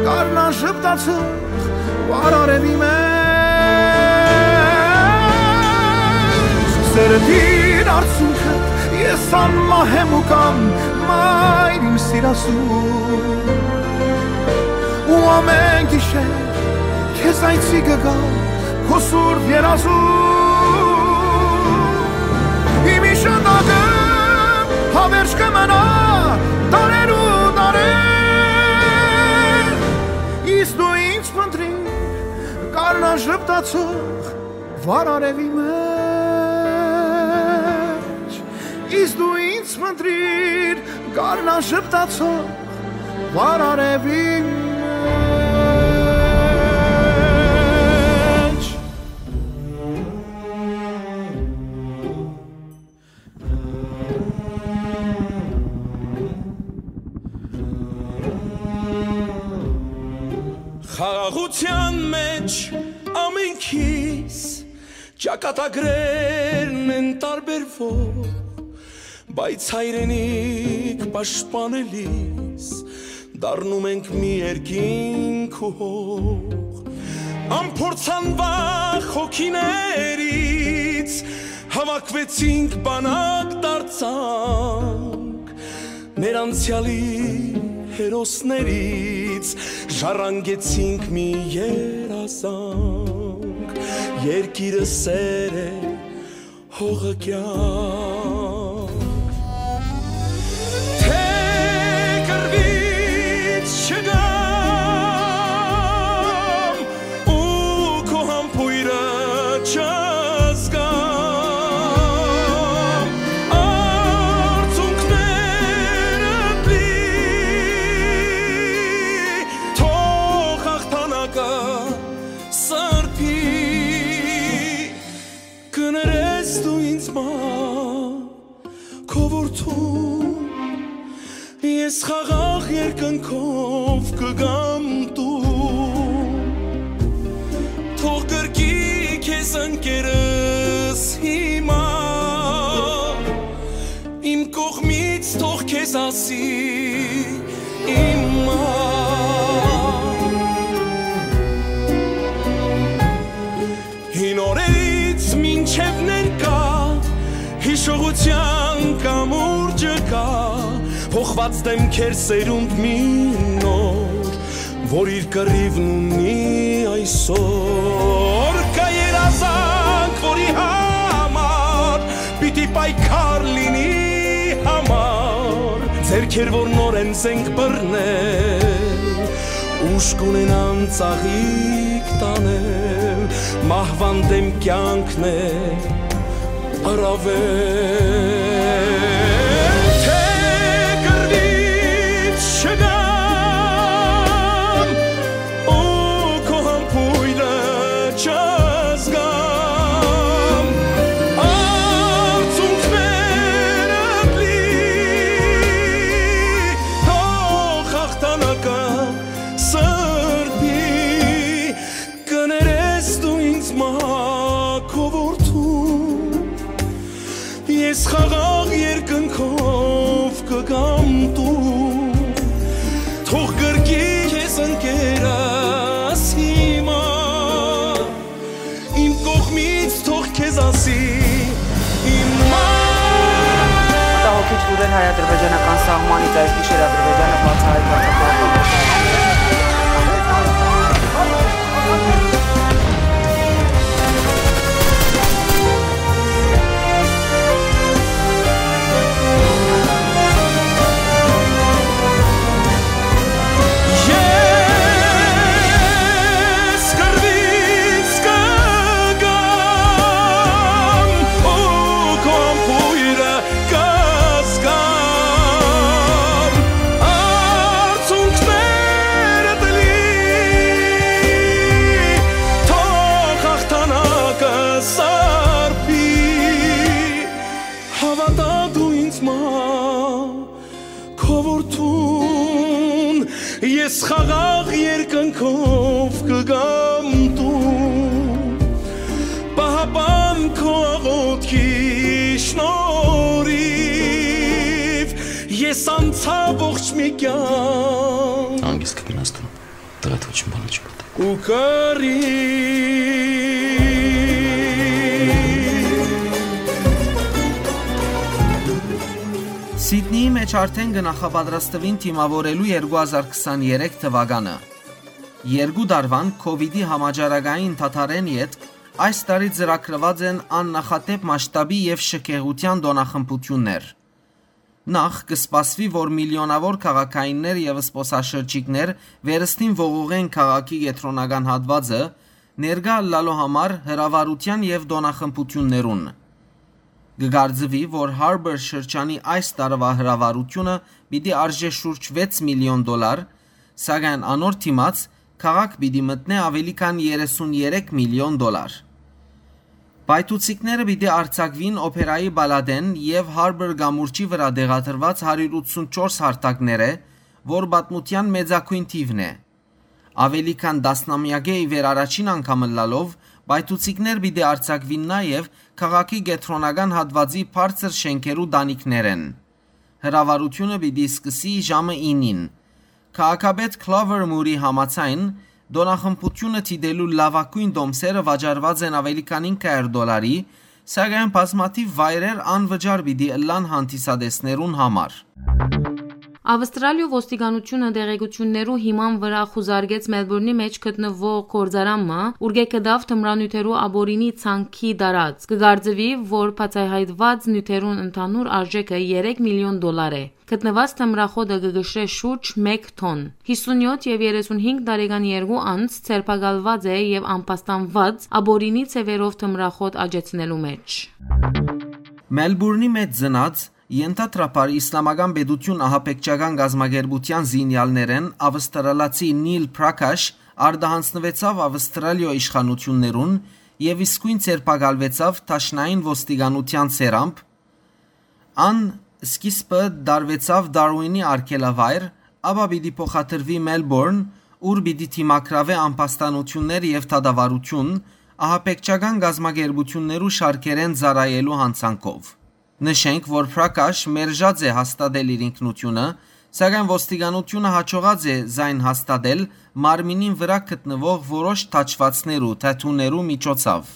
գարնան ժպտացող վար արեւի մեջ։ Սրբիր արցունքդ, ես անմահ եմ ու կամ, մայր իմ սիրասուն, ու ամեն գիշեր քեզ այցի կգամ քո սուրբ երազում։ Իմ իշատակը հավերժ կը մնայ դարեր ու դարեր, իսկ դու ինձ փնտրիր գարնան ժպտացող վար արեւի մեջ, իսկ դու ինձ փնտրիր գարնան ժպտացող վար արեւի մեջ։ Խաղաղութեան մէջ ամենքիս ճակատագրերն են տարբերվող, բայց հայրենիք պաշտպանելիս դառնում ենք մի երկինք ու հող։ Անփորձանվախ հոգիներից հավաքվեցինք, բանակ դարձանք, մեր անցեալի հերոսներից ժառանգեցինք մի երազանք։ Երկիրը սեր է, հողը կեանք։ Թէ կռուից չգամ ու քո համբոյրը չզգամ, արցունքներդ լի, թող հաղթանակը սրբի։ Կներես դու ինձ մայր, քո որդուն, ես խաղաղ երկնքով կգամ տուն։ Թող գրկի քեզ ընկերս հիմա, իմ կողմից թող քեզ ասի իմ մայր։ Հին օրերից մինչև ներկայ հիշողութեան կամուրջը կայ, փոխուած դէմքեր սերունդ մի նոր, որ իր կռիւն ունի այսօր։ Կայ երազանք, որի համար պիտի պայքար լինի համար, ձեռքեր, որ նորէն զենք բռնեն, ուժ կունենան ծաղիկ տանեն, մահուան դէմ կեանքն է առաւել, թէ կռուից չգամ ու քո համբոյրը չզգամ, արցունքներդ լի, թող հաղթանակը սրբի։ Կներես դու ինձ մայր, քո որդու, ես խաղաղ երկնքով կգամ տուն, թող գրկի քեզ ընկերս հիմա, իմ կողմից թող քեզ ասի իմ մայր։ Մտահոգիչ լուրեր հայ-ադրբեջանական սահմանից։ Այս գիշեր Ադրբեջանը բացահայտված է Հաւատա դու ինձ մա, քո որդուն, ես խաղաղ երկնքով կգամ դու։ Պահապան քո աղոթքի շնորհիվ ես անցա ողջ մի կյանք։ Հանգիստ կմնաս դու, տղա, ոչ մի բան չի պատահ։ Ու կարի։ Սիդնիի մէջ արդեն կը նախապատրաստուին դիմաւորելու երկու հազար քսաներեք թուականը։ Երկու տարուան քովիդի համաճարակային դադարէն ետք այս տարի ծրագրուած են աննախադէպ մասշտաբի եւ շքեղութեան տօնախմբութիւններ։ Նախ, կը սպասուի, որ միլիոնաւոր քաղաքայիններ եւ զբօսաշրջիկներ վերստին ողողեն քաղաքի կեդրոնական հատուածը, ներկայ ըլլալու համար հրավառութեան եւ տօնախմբութիւններուն։ Կը կարծուի, որ Harbour շրջանի այս տարուայ հրավառութիւնը պիտի արժէ շուրջ վեց միլիոն դոլար, սակայն անոր դիմաց քաղաք պիտի մտնէ աւելի քան երեսուն երեք միլիոն դոլար։ Պայթուցիկները պիտի արձակուին օփերայի պալատէն եւ Harbour կամուրջի վրայ տեղադրուած հարիւր ութսունչորս հարթակներէ, որ պատմութեան մեծագոյն թիւն է։ Աւելի քան տասնամեակէ ի վեր առաջին անգամ ըլլալով, պայթուցիկներ պիտի արձակուին նաեւ քաղաքի կեդրոնական հատուածի բարձր շէնքերու տանիքներէն։ Հրավառութիւնը պիտի սկսի ժամը ինին։ Քաղաքապետ Clover Moore-ի համաձայն, տօնախմբութիւնը դիտելու լաւագոյն տոմսերը վաճառուած են աւելի քան ինք հարիւր դոլարի, սակայն բազմաթիւ վայրեր անվճար պիտի ըլլան հանդիսատեսներուն համար։ Ավստրալիոյ ոստիկանութիւնը տեղեկութիւններու հիման վրայ խուզարկեց Մելբուրնի մէջ գտնուող գործարան մը, ուրկէ գտաւ թմրանիւթերու ապօրինի ցանքի տարածք։ Կը կարծուի, որ բացայայտուած նիւթերուն ընդհանուր արժէքը երեք միլիոն դոլար է։ Գտնուած թմրախոտը կը կշռէ շուրջ մէկ թոն։ Յիսունյոթ եւ երեսունհինգ տարեկան երկու անձ ձերբակալուած է եւ ամբաստանուած՝ ապօրինի ձեւերով թմրախոտ աճեցնելու մէջ։ Մելբուրնի մէջ ծնած, ենթադրաբար Իսլամական Պետութիւն ահաբեկչական կազմակերպութեան զինեալներէն ավստրալացի Նիլ Պրաքաշ արտահանձնուեցաւ Ավստրալիոյ իշխանութիւններուն եւ իսկոյն ձերբակալուեցաւ դաշնային ոստիկանութեան սերամբ։ Ան սկիզբը տարուեցաւ Դարուինի արգելավայր, ապա պիտի փոխադրուի Մելբորն, ուր պիտի դիմագրաւէ ամբաստանութիւններ եւ դատավարութիւն՝ ահաբեկչական կազմակերպութիւններու շարքերէն ծառայելու յանցանքով։ Նշենք, որ Պրաքաշ մերժած է հաստատել իր ինքնութիւնը, սակայն ոստիկանութիւնը յաջողած է զայն հաստատել մարմինին վրայ գտնուող որոշ թաչուածներու, թեթուներու միջոցով։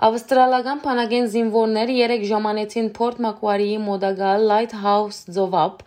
Ավստրալական բանակէն զինուորներ երեկ ժամանեցին Փորթ Մակուարիի մօտակայ Լայթ Հաուս ծովափ,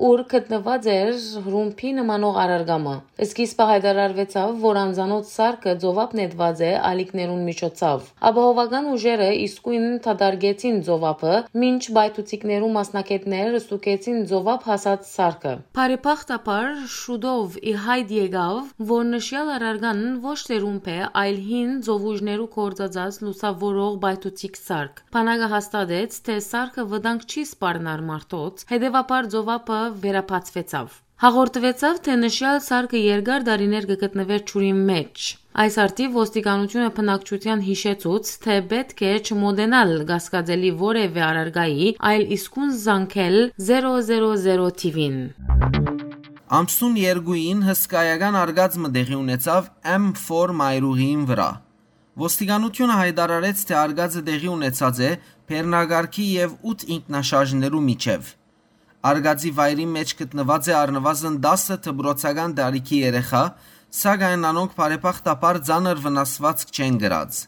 ուր գտնուած էր ռումբի նմանող առարկայ մը։ Սկիզբը յայտարարուեցաւ, որ անծանոթ սարքը ծովափ նետուած է ալիքներուն միջոցով։ Ապահովական ուժերը իսկոյն դատարկեցին ծովափը, մինչ պայթուցիկներու մասնագէտներ ստուգեցին ծովափ հասած սարքը։ Բարեբախտաբար, շուտով ի յայտ եկաւ, որ նշեալ առարկան ոչ թե ռումբ է, այլ հին ծովուժներու գործածած լուսաւորող պայթուցիկ սարք։ Բանակը հաստատեց, թե սարքը վտանգ չի սպառնար մարդոց, հետեւաբար ծովափը վերաբացուեցաւ։ Հաղորդուեցաւ, թե նշեալ սարքը երկար տարիներ կը գտնուէր ջուրին մէջ։ Այս առթիւ ոստիկանութիւնը բնակչութեան յիշեցուց, թե պէտք է չմոտենալ կասկածելի որեւէ առարկայի, այլ իսկուն զանգել զերո զերո զերո թիվին։ Ամսուն երկուին հսկայական արկած մը տեղի ունեցաւ M four մայրուղիին վրայ։ Ոստիկանութիւնը յայտարարեց, թե արկածը տեղի ունեցած է բեռնակարգի եւ ութ ինքնաշարժներու միջեւ։ Արկածի վայրին մէջ գտնուած է առնուազն տասը դպրոցական տարիքի երեխայ, սակայն անոնք բարեբախտաբար ծանր վնասուածք չեն կրած։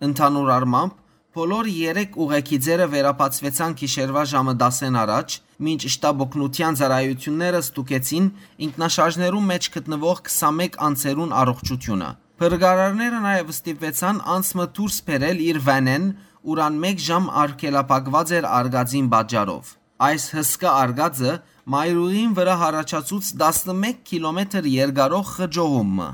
Ընդհանուր առմամբ, բոլոր երեք ուղեգիծերը վերաբացուեցան գիշերուայ ժամը տասէն առաջ, մինչ շտապօգնութեան ծառայութիւնները ստուգեցին ինքնաշարժներու մէջ գտնուող քսանմէկ անձերուն առողջութիւնը։ Փրկարարները նաեւ ստիպուեցան անձ մը դուրս բերել իր վանէն, ուր ան մէկ ժամ արգելափակուած էր արկածին պատճառով։ Այս հսկայ արկածը մայրուղին վրայ յառաջացուց տասնմէկ կիլոմետր երկարող խճողում մը։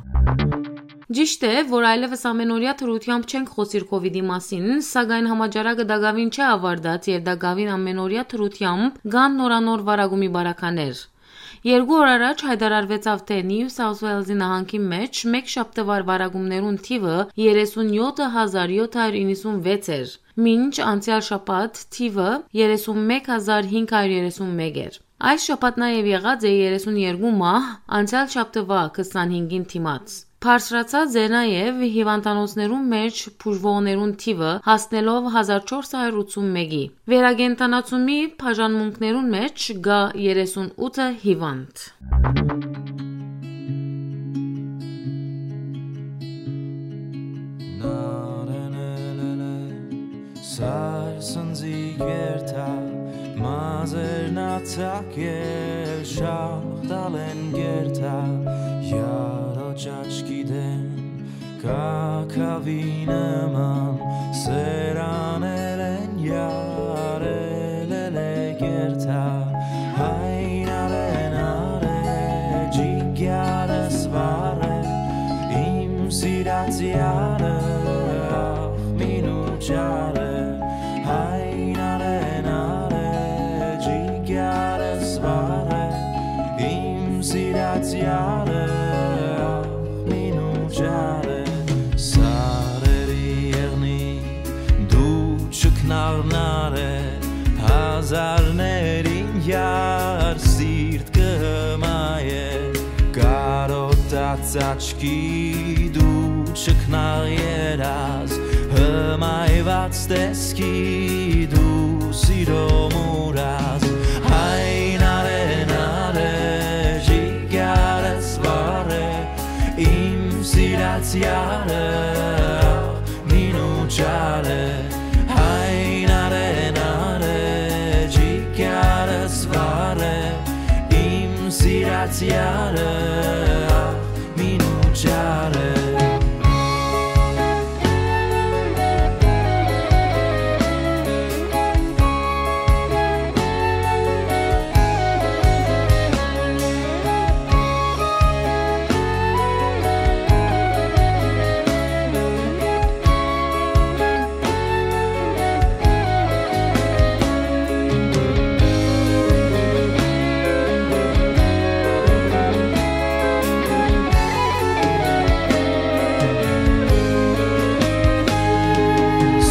Ճիշդ է, որ այլեւս ամենօրեայ դրությամբ չենք խօսիր քովիդի մասին, սակայն համաճարակը տակաւին չէ աւարտած եւ տակաւին ամենօրեայ դրությամբ կան նորանոր վարակումի բարականեր։ Երկու օր առաջ յայտարարուեցաւ, թէ Նիու Սաութ Ուէյլզի նահանգին մէջ մէկ շաբթուար վարակումներուն թիւը երեսուն յոթ հազար յոթ հարիւր իննսուն վեց էր, մինչ անցեալ շաբաթ թիւը երեսուն մէկ հազար հինգ հարիւր երեսուն մէկ էր։ Այս շաբաթ նաեւ եղած է երեսուն երկու մահ, անցեալ շաբթուայ քսանհինգին դիմաց։ Բարձրացած է նաեւ հիւանդանոցներուն մէջ բուժուողներուն թիւը, հասնելով հազար չորս հարիւր ութսուն մէկի։ Վերակենդանացումի բաժանմունքներուն մէջ կայ երեսուն ութը հիւանդ։ Սար սնձի գերթա, մազերն ացակել, շաղ տալեն գերթա, յարոճ աչքի դեմ, կակաւի նման, սերաներեն յարել է գերթա, հայնարեն արէ, ջիգարս վառէ, իմ սիրած յարը, ախ, մինու չարը, հայնարեն արէ, ջիգարս վառէ, իմ սիրած յարը, ախ, մինու չարը, սարերի եղնի, դու չքնաղնար է, հազարներին յար սիրտ կը հմայ է, կարոտած աչքի դու չքնաղ երազ, հմայված տեսքի դու սիրո մուրազ, հայնարեն արէ, ջիգարս վառէ, իմ սիրած յարը, մինու չարը, հայնարեն արէ, ջիգարս վառէ, իմ սիրած յարը, մինու չարը։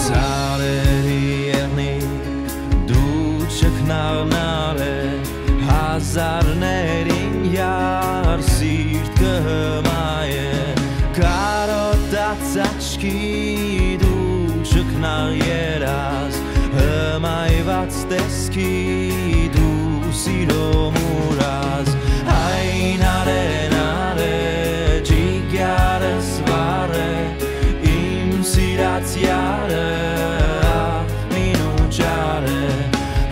Սարերի եղնի, դու չքնաղնար է, հազարներին յար սիրտ կը հմայ է, կարոտած աչքի դու չքնաղ երազ, հմայված տեսքի դու սիրո մուրազ, հայնարեն արէ, ջիգարս վառէ, իմ սիրած յարը, ախ, մինու չարը,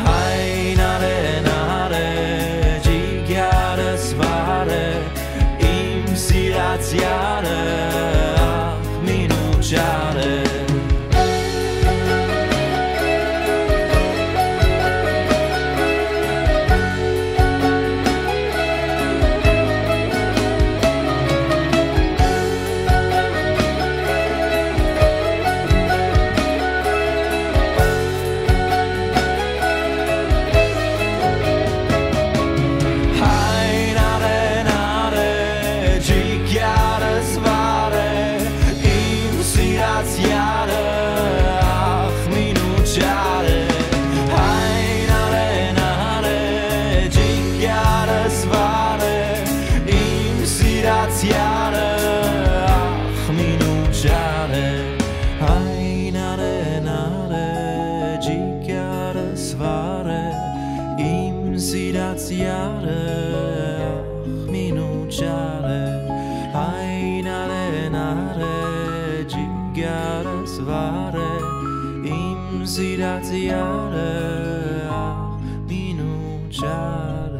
հայնարեն արէ, ջիգարս վառէ, իմ սիրած յարը, ախ, մինու չարը։ Հայնարեն արէ, ջիգարս վառէ, իմ սիրած յարը, ախ, մինու չարը, հայնարեն արէ, ջիգարս վառէ, իմ սիրած յարը, ախ, մինու չարը, հայնարեն արէ, ջիգարս վառէ, իմ սիրած յարը, ախ, մինու չարը, հայնարեն արէ, ջիգարս վառէ, իմ սիրած յարը, ախ, մինու չարը։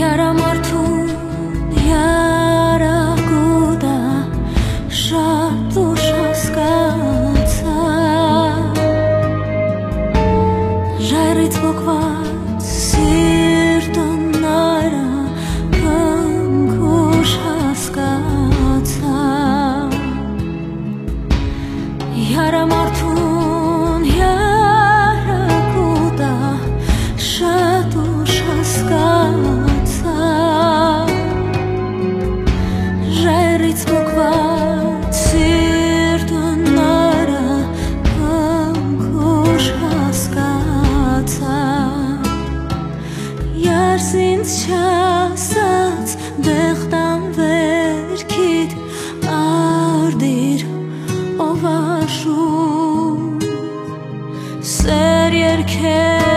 Յարամարդուն յարակուտա շատ ու շատ Ինձ չասած, դեղտան վերքիդ արտիր, ով աշուն։ Սեր երկելով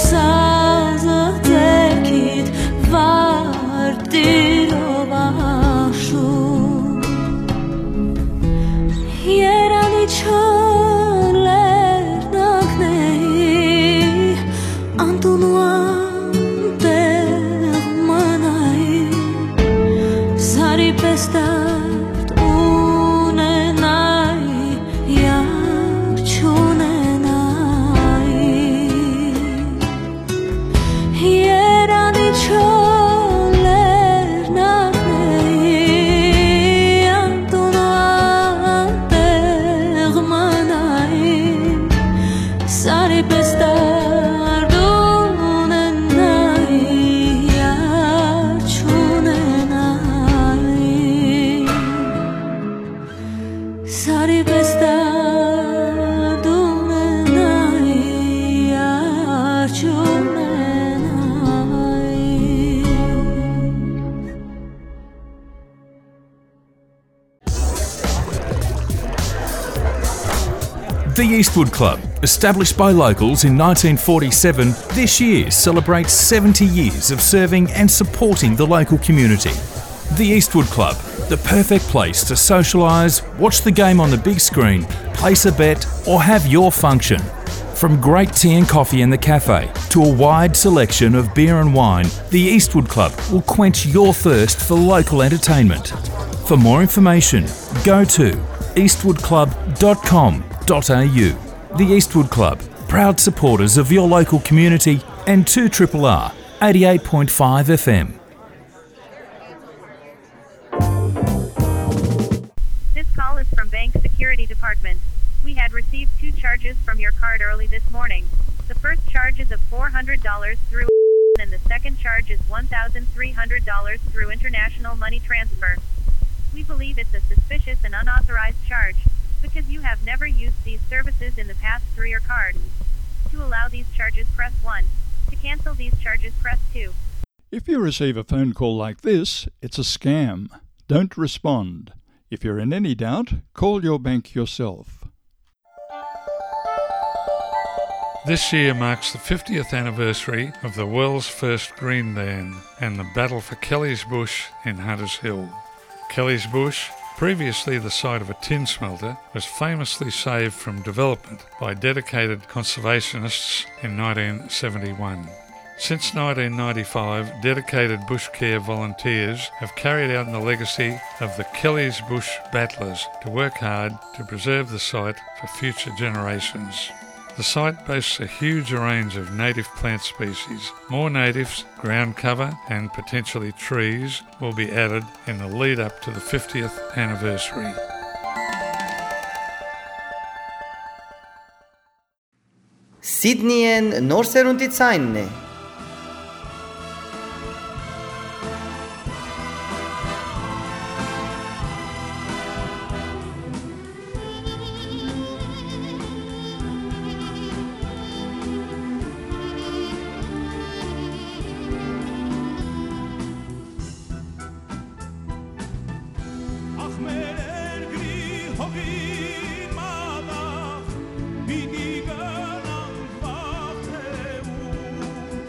սազը ձեռքիդ, վարտիր, ով աշուն։ Երանի չոր լեռնակների, անտուն ու անտեղ մնայի, սարի պէս դարդ ունենայի, յար չունենայի։ Երանի չոր լեռնակների, անտուն ու անտեղ մնայի, սարի պէս դարդ ունենայի, յար չունենայի։ Սարի պէս դարդ ունենայի, յար չունենայի։ The Eastwood Club, established by locals in nineteen forty-seven, this year celebrates seventy years of serving and supporting the local community. The Eastwood Club, the perfect place to socialise, watch the game on the big screen, place a bet, or have your function. From great tea and coffee in the cafe to a wide selection of beer and wine, the Eastwood Club will quench your thirst for local entertainment. For more information, go to eastwoodclub.com.au. The Eastwood Club, proud supporters of your local community and two triple R, eighty-eight point five F M. This call is from Bank Security Department. We had received two charges from your card early this morning. The first charge is of four hundred dollars through and the second charge is one thousand three hundred dollars through international money transfer. We believe it's a suspicious and unauthorized charge because you have never used these services in the past through your card. To allow these charges, press one. To cancel these charges, press two. If you receive a phone call like this, it's a scam. Don't respond. If you're in any doubt, call your bank yourself. This year marks the fiftieth anniversary of the world's first green ban and the battle for Kelly's Bush in Hunters Hill. Kelly's Bush, previously the site of a tin smelter, was famously saved from development by dedicated conservationists in nineteen seventy-one. Since nineteen ninety-five, dedicated bush care volunteers have carried out the legacy of the Kelly's Bush Battlers to work hard to preserve the site for future generations. The site boasts a huge range of native plant species. More natives, ground cover, and potentially trees will be added in the lead up to the fiftieth anniversary. Սիդնիէն նոր սերունդի ցայնն է։ Ախ, մեր երկրի հողին մատաղ, պիտի գնանք վաղ թե ուշ։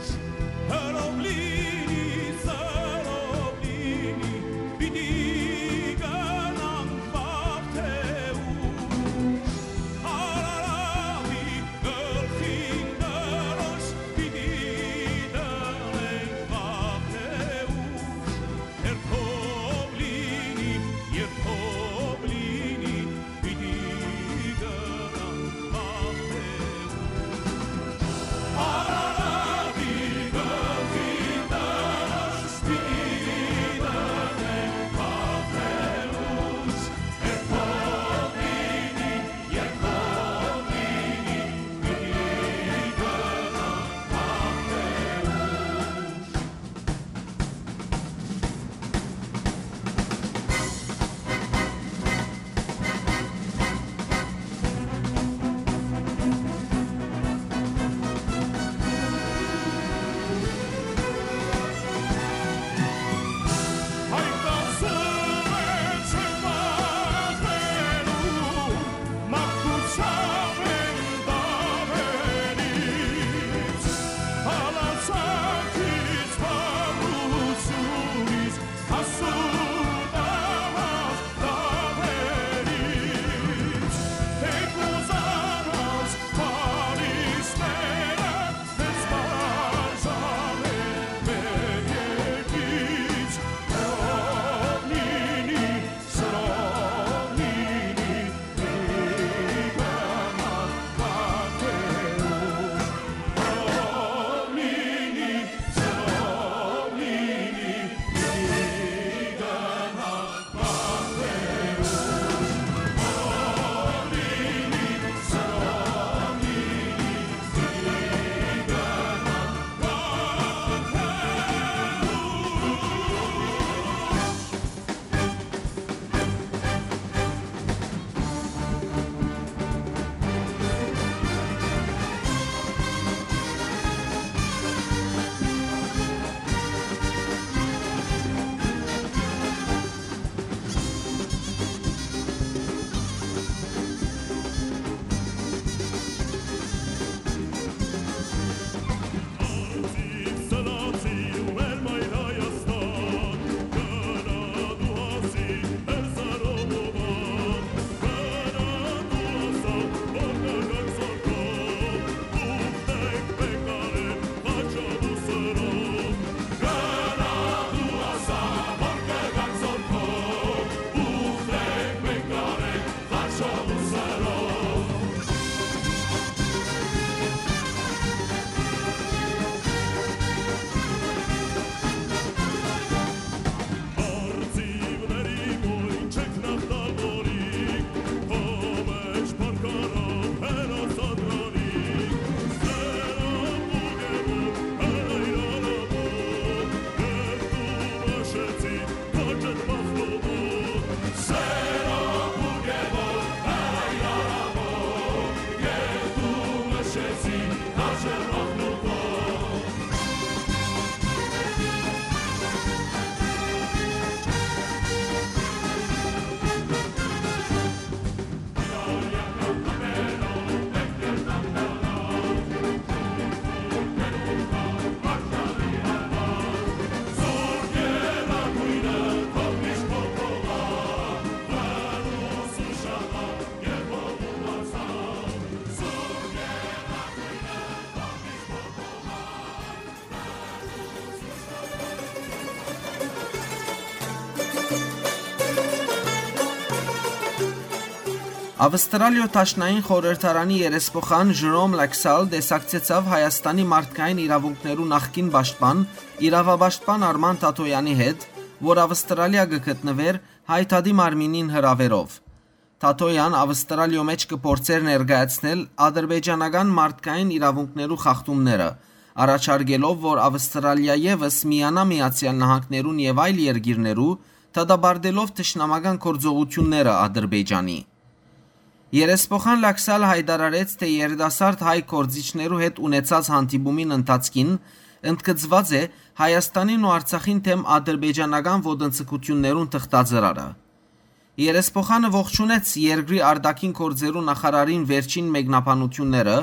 Ավստրալիոյ Դաշնային խորհրդարանի երեսփոխան Ժրոմ Լաքսալ տեսակցեցաւ Հայաստանի մարդկային իրաւունքներու նախկին պաշտպան, իրաւապաշտպան Արման Թաթոյանի հետ, որ Ավստրալիա կը գտնուէր Հայ Դատի մարմինին հրաւերով։ Թաթոյան Ավստրալիոյ մէջ կը փորձէր ներկայացնել ադրբեջանական մարդկային իրաւունքներու խախտումները, առաջարկելով, որ Ավստրալիա եւս միանայ Միացեալ Նահանգներուն եւ այլ երկիրներու, դատապարտելով թշնամական գործողութիւնները Ադրբեջանի։ Երեսփոխան Լաքսալ յայտարարեց, թէ երիտասարդ հայ գործիչներու հետ ունեցած հանդիպումին ընթացքին ընդգծուած է Հայաստանին ու Արցախին դէմ ադրբեջանական ոտնձգութիւններուն թղթածրարը։ Երեսփոխանը ողջունեց երկրի արտաքին գործերու նախարարին վերջին մեկնաբանութիւնները,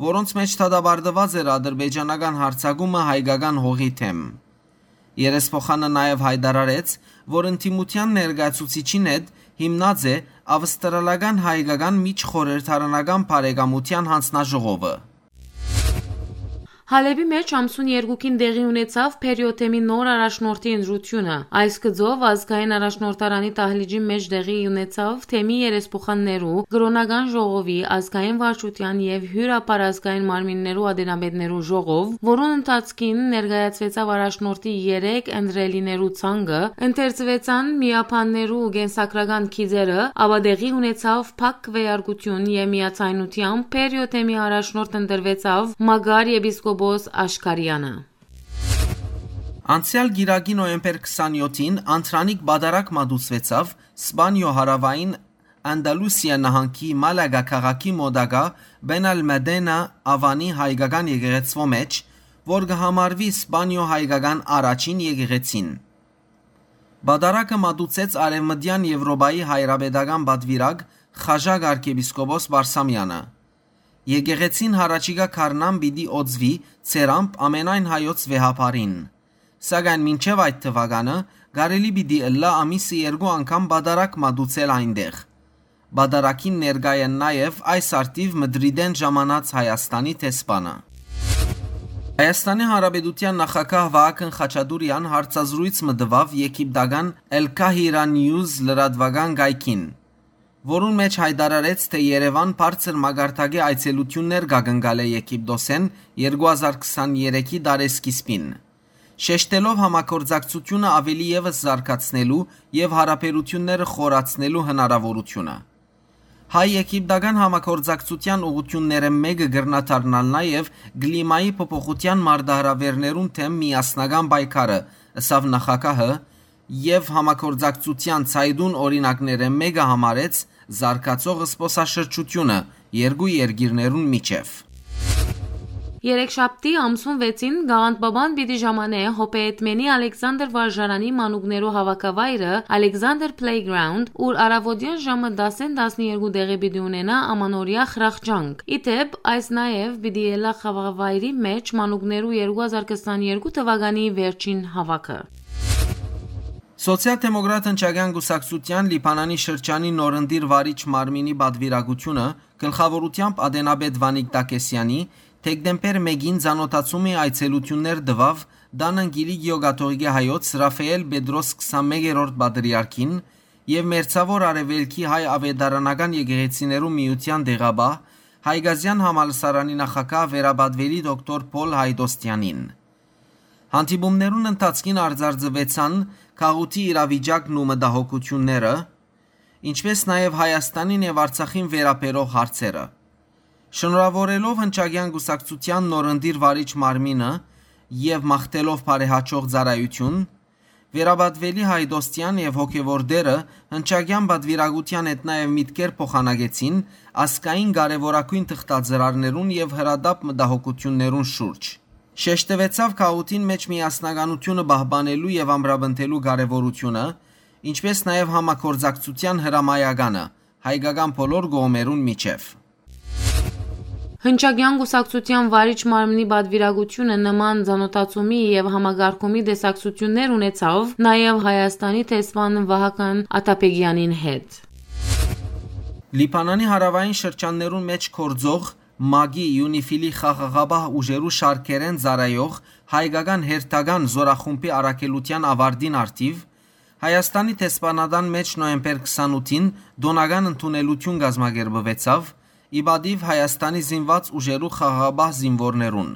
որոնց մէջ դատապարտուած էր ադրբեջանական յարձակումը հայկական հողի դէմ։ Երեսփոխանը նաեւ յայտարարեց, որ ընդդիմութեան ներկայացուցիչին հետ հիմնած է ավստրալական հայկական միջխորհրդարանական բարեկամութեան յանձնաժողովը։ Հալէպի մէջ ամսուն երկուքին տեղի ունեցաւ Փերիոթեմի նոր առաջնորդի ընտրութիւնը։ Այս գծով ազգային առաջնորդարանի դահլիճի մէջ տեղի ունեցաւ թեմի երեսփոխաններու, կրօնական ժողովի, ազգային վարչութեան եւ հիւրապարազգային մարմիններու ատենապետներու ժողով, որուն ընթացքին ներկայացուեցաւ առաջնորդի երեք ընտրելիներու ցանկը, ընթերցուեցան միաբաններու կենսագրական գիծերը, ապա տեղի ունեցաւ փակ քվեարկութիւն եւ միաձայնութեամբ Փերիոթեմի առաջնորդ ընտրուեցաւ Մակար եպիսկոպոս Աշքարեանը։ Անցեալ կիրակի, նոյեմբեր քսանեթին, Անդրանիկ պատարագ մատուցուեցաւ Սպանիոյ հարաւային Անդալուսիա նահանգի Մալագա քաղաքի մօտակայ Բենալմեդենա Ավանի հայկական եկեղեցւոյ մէջ, որ կը համարուի Սպանիոյ հայկական առաջին եկեղեցին։ Պատարագը մատուցեց Արեւմտեան Եւրոպայի հայրապետական պատուիրակ Խաժակ արքեպիսկոպոս Բարսամեանը։ Եկեղեցին յառաջիկայ գարնան պիտի օծուի ծերամբ ամենայն հայոց վեհափառին։ Սակայն մինչեւ այդ թուականը կարելի պիտի ըլլայ ամիսը երկու անգամ պատարագ մատուցել այնտեղ։ Պատարագին ներկայ են նաեւ այս առթիւ Մդրիդէն ժամանած Հայաստանի դեսպանը։ Հայաստանի Հանրապետութեան նախագահ Վահագն Խաչատուրեան հարցազրոյց մը տուաւ եգիպտական El Kahira News լրատուական կայքին, որուն մէջ յայտարարեց, թէ Երեւան բարձր մակարդակի այցելութիւններ կ'ակնկալէ Եգիպտոսէն երկու հազար քսաներեքի տարեսկիզբին, շեշտելով համագործակցութիւնը աւելի եւս զարգացնելու եւ յարաբերութիւնները խորացնելու հնարաւորութիւնը։ Հայ-եգիպտական համագործակցութեան ուղղութիւններէն մէկը կրնայ դառնալ նաեւ կլիմայի փոփոխութեան մարտահրաւէրներուն դէմ միասնական պայքարը, ըսաւ նախագահը, եւ համագործակցութեան ցայտուն օրինակներէն մէկը համարեց զարգացող զբօսաշրջութիւնը երկու երկիրներուն միջեւ։ Երեքշաբթի, ամսուն վեցին, Գաղանդ Պապան պիտի ժամանէ Հոպեյեդմենի Ալեքսանդր վարժարանի մանուկներու հաւաքավայրը Ալեքսանդր Playground, ուր առաւօտեան ժամը տասէն տասներկու տեղի պիտի ունենայ ամանորեայ խրախճանք։ Ի դէպ, այս նաեւ պիտի ելլայ խաղավայրի մէջ մանուկներու երկու հազար քսաներկու թուականի վերջին հաւաքը։ Սոցիալ-դեմոկրատ հնչակեան կուսակցութեան Լիբանանի շրջանի նորընտիր վարիչ մարմինի պատվիրակութիւնը գլխաւորութեամբ ատենապետ Վանիկ Տակեսեանի դեկտեմբեր մէկին ծանօթացումի այցելութիւններ տուաւ Տանն Կիլիկիոյ կաթողիկէ հայոց Ռաֆայէլ Պետրոս քսանմեկերորդ պատրիարքին եւ Մերձաւոր Արեւելքի հայ աւետարանական եկեղեցիներու միութեան տեղապահ, Հայկազեան համալսարանի նախագահ վերապատուելի դոկտոր Փոլ Հայդոստեանին։ Հանդիպումներուն ընթացքին արձանձնուեցան գաղութի իրավիճակն ու մտահոգութիւնները, ինչպէս նաեւ Հայաստանին եւ Արցախին վերաբերող հարցերը։ Շնորհաւորելով հնչակեան կուսակցութեան նորընտիր վարիչ մարմինը եւ մաղթելով բարեհաճող ծառայութիւն, վերապատուելի Հայդոստեան եւ հոգեւոր դերը հնչակեան պատվիրակութեան հետ նաեւ միտքեր փոխանակեցին ազգային կարեւորագոյն թղթածրարներուն եւ հրատապ մտահոգութիւններուն շուրջ։ Շեշտուեցաւ գաղութին մէջ միասնականութիւնը պահպանելու եւ ամրապնդելու կարեւորութիւնը, ինչպէս նաեւ համագործակցութեան հրամայականը հայկական բոլոր կողմերուն միջեւ։ Հնչակեան կուսակցութեան վարիչ մարմնի պատվիրակութիւնը նման ծանօթացումի եւ համակարգումի տեսակցութիւններ ունեցաւ նաեւ Հայաստանի դեսպան Վահագն Աթաբեգեանին հետ։ Լիբանանի հարաւային շրջաններուն մէջ գործող մագի Իունիֆիլի խաղաղապահ ուժերու շարքերէն ծառայող հայկական հերթական զորախումբի առաքելութեան աւարտին առթիւ Հայաստանի դեսպանատան մէջ նոյեմբեր քսանութին տօնական ընդունելութիւն կազմակերպուեցաւ ի պատիւ Հայաստանի զինուած ուժերու խաղաղապահ զինուորներուն,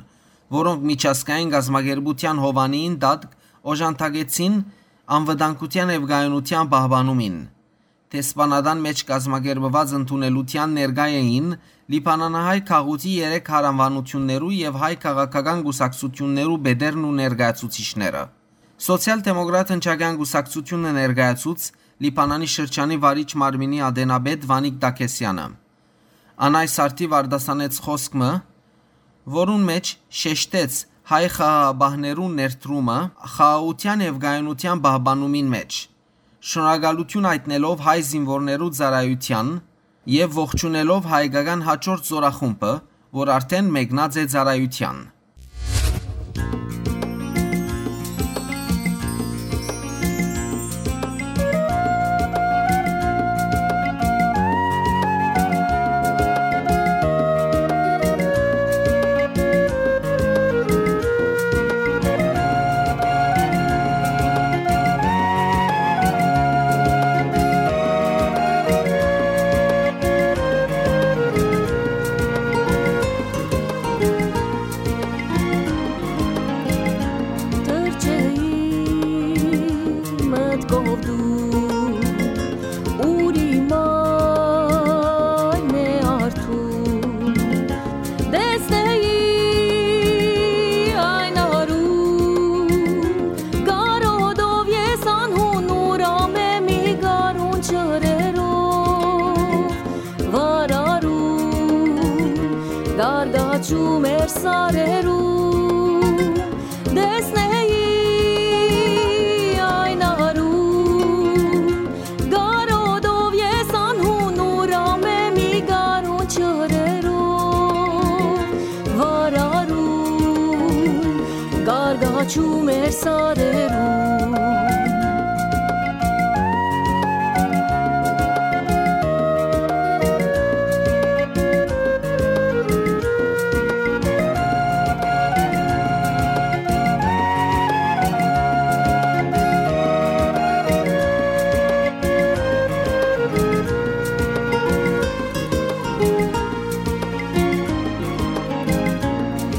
որոնք միջազգային կազմակերպութեան հովանիին տակ օժանդակեցին անվտանգութեան եւ կայունութեան պահպանումին։ Դեսպանատան մէջ կազմակերպուած ընդունելութեան ներկայ էին լիբանանահայ գաղութի երեք հարանվանութիւններու եւ հայ քաղաքական կուսակցութիւններու պետերն ու ներկայացուցիչները։ Սոցիալ-դեմոկրատ հնչակեան կուսակցութիւնը ներկայացուց Լիբանանի շրջանի վարիչ մարմինի ատենապետ Վանիկ Տաքեսյանը։ Ան այս արդիւ արտասանեց խօսք մը, որուն մէջ շեշտեց հայ խաղաղապահներու ներդրումը խաղաղութեան եւ կայունութեան պահպանումին մէջ, շնորհակալութիւն յայտնելով հայ զինուորներու ծառայութեան եւ ողջունելով հայկական յաջորդ զօրախումբը, որ արդէն մեկնած է ծառայութեան։ Թռչէի մտքով դու, ուր իմ այն է արթուն, տեսնէի այն արուն, կարոտով ես անհուն ուրամ եմ ի գարուն ջրերով, վարարուն, գարդաչում էր սարերուն, տեսնէի այն արուն, կարոտով ես անհուն ուրամ եմ ի գարուն ջրերով, վարարուն, գարդաչում էր սարերուն։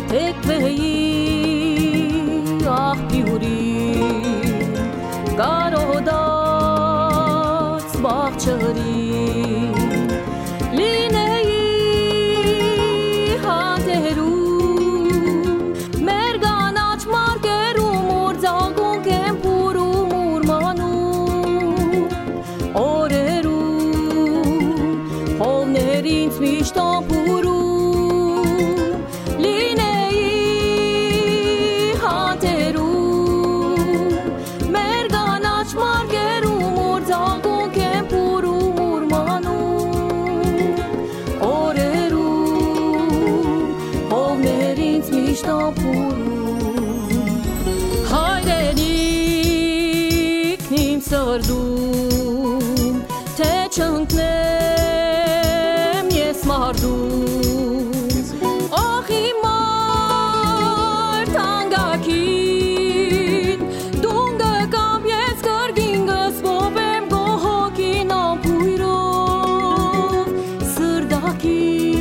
Թեքվէի աղբիուրին, կարոտած բաղ ջրին, լինէի հանդերում, մեր կանաչ մարկերում, ուր ձագունք են փուռում, ուրմանում օրերուն, խովներ ինձ միշտ ան փուռում, լինէի հանդերում, մեր կանաչ մարկերում, ուր ձագունք են փուռում, ուրմանում օրերուն, խովներ ինձ միշտ ան փուռում։ Հայրենիքն իմ սրտում, թե չընկնեմ ես մարտում։ Ախ, իմ մարդ անկագին, դուն կկամ, ես կրկին կսպովեմ քո հոգին անբոյրով, սրտակին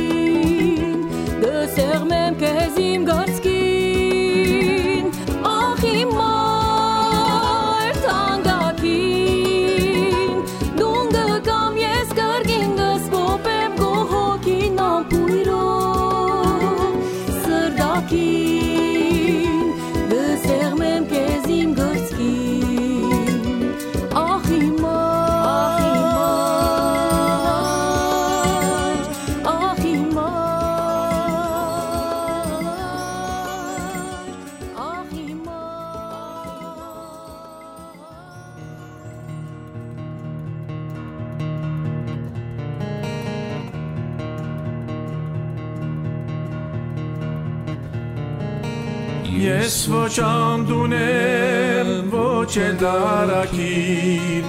կսեղմեմ քեզ իմ կրծքին։ Ախ, իմ մարդ անկագին, դուն կկամ, ես կրկին կսպովեմ քո հոգին անբոյրով, սրտակին կսեղմեմ քեզ իմ կրծքին։ Ախ, իմ մարդ, ախ, իմ մարդ, ախ, իմ մարդ։ Ես ոչ անդուն եմ, ոչ էլ դարակիր,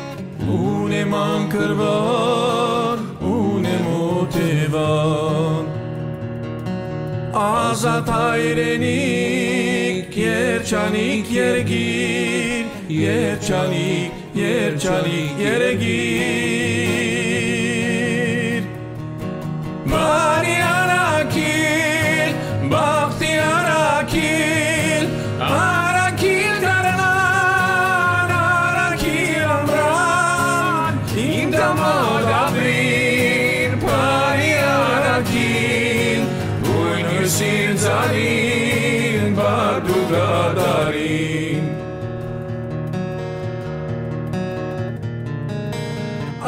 ունեմ անկրվան, ունեմ օթեվան։ Ազատ հայրենիք, երջանիկ երկիր, Երջանիկ, երջանիկ երեգիր։ Բարի առաքիլ, բախտի առաքիլ, առաքիլ գարնան, առաքիլ ամրան, իմ տամոտ ապրիր, բարի առաքիլ, բույն հիւսին ծառին, բարդու կատարին։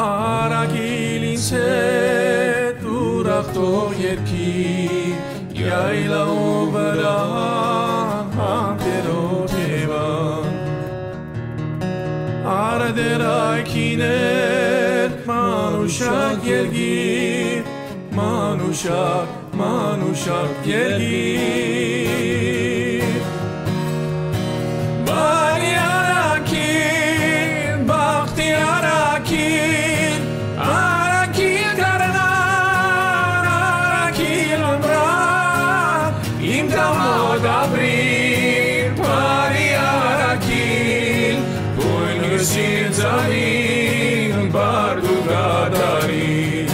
Առաքիլ ինձ հետ ուրախ թող երգի, յայլաւու վրայ հանդերձ Եվան։ Արդեր այգիներ, մանուշակ երգի, մանուշակ, մանուշակ երգի։ Բարի առաքիլ, բախտի առաքիլ, առաքիլ գարնան, առաքիլ ամրան, իմ տամոտ ապրիր, բարի առաքիլ, բույն հիւսին ծառին, բարդու կատարին։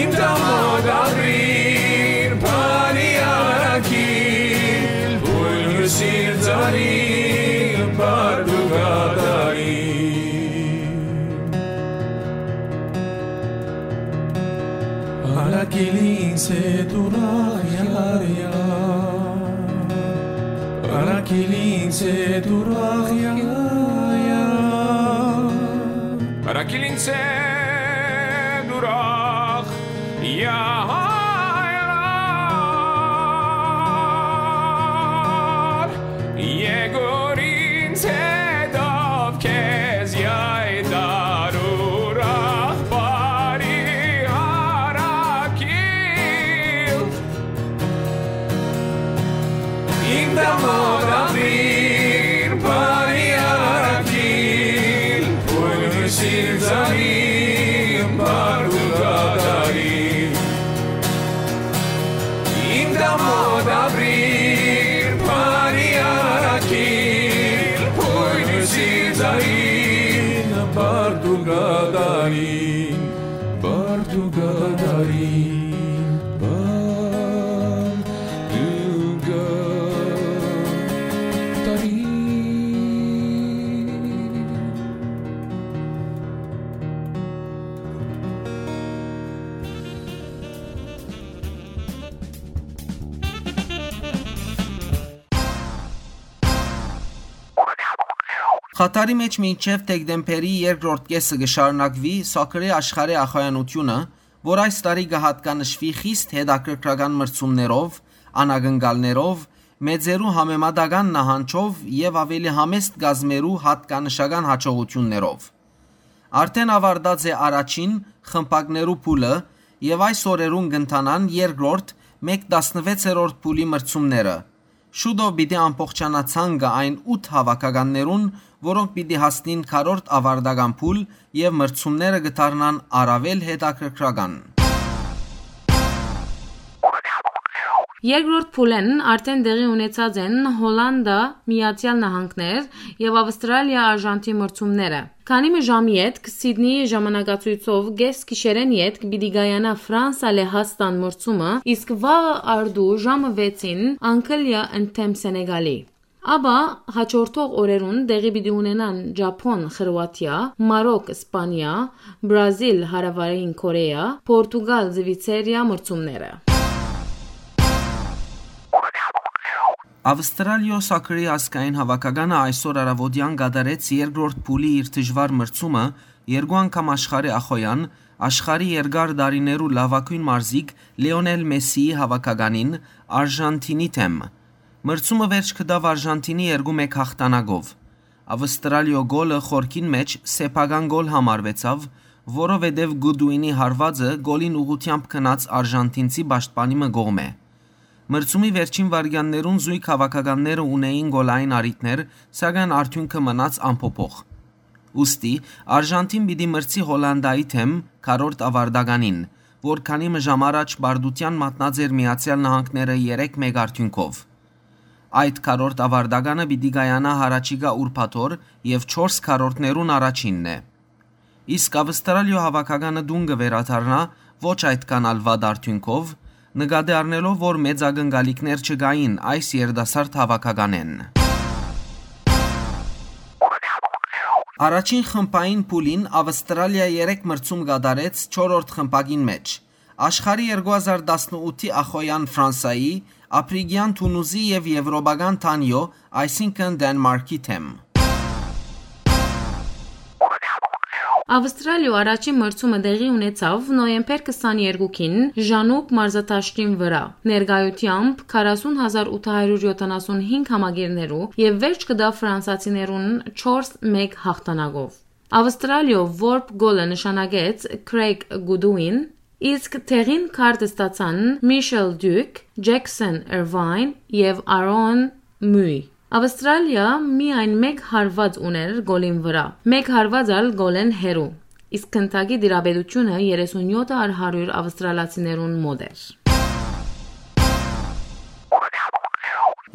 Իմ տամոտ ապրիր, բարի առաքիլ, բույն հիւսին ծառին, բարդու կատարին։ Առաքիլ ինձ հետ ուրախ յարյար, առաքիլ ինձ հետ ուրախ յարյար։ Առաքիլ ինձ հետ ուրախ յարյար, եկուր ինձ հետով քեզ յայտար ուրախ բարի առաքիլ։ Իմ տամոտ ապրիր, բարի առաքիլ, բույն հիւսին ծառին, բարդու կատարին։ Իմ տամոտ ապրիր, բարի առաքիլ, բույն հիւսին ծառին, բարդու կատարին, բարդու կատարին, բարդու կատարին։ Խաթարի մէջ մինչեւ դեկտեմբերի երկրորդ կէսը կը շարունակուի սոքերի աշխարհի ախոյանութիւնը, որ այս տարի կը յատկանշուի խիստ հետաքրքրական մրցումներով, անակնկալներով, մեծերու համեմատական նահանջով եւ աւելի համեստ կազմերու յատկանշական յաջողութիւններով։ Արդէն աւարտած է առաջին խմբակներու փուլը եւ այս օրերուն կ'ընթանան երկրորդ, մէկ տասնվեցերորդ փուլի մրցումները։ Շուտով պիտի ամբողջանայ ցանկը այն ութ հաւաքականներուն, որոնք պիտի հասնին քառորդ աւարտական փուլ եւ մրցումները կը դառնան առաւել հետաքրքրական։ Երկրորդ փուլէն արդէն տեղի ունեցած են Հոլանտա, Միացեալ Նահանգներ եւ Ավստրալիա-Արժանթին մրցումները։ Քանի մը ժամ ետք Սիդնիի ժամանակացոյցով կէս գիշերէն ետք պիտի կայանայ Ֆրանսա-Լեհաստան մրցումը, իսկ վաղը արդու ժամը վեցին Անգլիա ընդդէմ Սենեգալի։ Ապա հաջորդող օրերուն տեղի պիտի ունենան Ճափոն, Խրուաթիա, Մարոկ, Սպանիա, Բրազիլ, Հարավային Կորեա, Պորտուգալ, Զվիցերիա մրցումները։ Ավստրալիոյ սոքերի ազգային հաւաքականը այսօր առաւօտեան կատարեց երկրորդ փուլի իր դժուար մրցումը երկու անգամ աշխարհի ախոյան, աշխարհի երկար տարիներու լաւագոյն մարզիկ Լիոնել Մեսսիի հաւաքականին՝ Արժանթինի դէմ։ Մրցումը վերջ գտաւ Արժանթինի երկու մէկ հաղթանակով։ Ավստրալիոյ գոլը խորքին մէջ սեփական գոլ համարուեցաւ, որովհետեւ Գուդուինի հարուածը գոլին ուղղութեամբ գնաց արժանթինցի պաշտպանի մը կողմէ։ Մրցումի վերջին վայրկեաններուն զոյգ հաւաքականները ունէին գոլային առիթներ, սակայն արդիւնքը մնաց անփոփոխ։ Ուստի Արժանթին պիտի մրցի Հոլանտայի դէմ քառորդ աւարտականին, որ քանի մը ժամ առաջ պարտութեան մատնած էր Միացեալ Նահանգները երեք մէկ արդիւնքով։ Այդ քառորդ աւարտականը պիտի կայանայ յառաջիկայ ուրբաթօր եւ չորս քառորդներուն առաջինն է։ Իսկ Ավստրալիոյ հաւաքականը տուն կը վերադառնայ ոչ այդքան ալ վատ արդիւնքով, նկատի առնելով, որ մեծ ակնկալիքներ չկային այս երիտասարդ հաւաքականէն։ Առաջին խմբային փուլին Ավստրալիա երեք մրցում կատարեց չորրորդ խմբակին մէջ։ Աշխարհի երկու հազար տասնութի ախոյեան Ֆրանսայի, Ափրիկեան Թունուզի եւ Եւրոպական Թանիո, այսինքն Դենմարքի դէմ։ Ավստրալիոյ առաջին մրցումը տեղի ունեցաւ նոյեմբեր քսաներկուին Ժանուբ մարզադաշտին վրայ, ներկայութեամբ քառասուն հազար ութ հարիւր յոթանասուն հինգ համակիրներու, եւ վերջ կը տայ ֆրանսացիներուն չորս մէկ յաղթանակով։ Ավստրալիոյ որբ գոլը նշանակեց Քրեյգ Գուդուին, իսկ տեղին քարտ ստացան Միշել Դիուք, Ջեքսոն Էրվայն եւ Արոն Մուի։ Ավստրալիա միայն մէկ հարուած ունէր գոլին վրայ, մէկ հարուած ալ գոլէն հեռու, իսկ գնդակի տիրապետութիւնը երեսունյոթ առ հարիւր ավստրալացիներուն մօտ էր։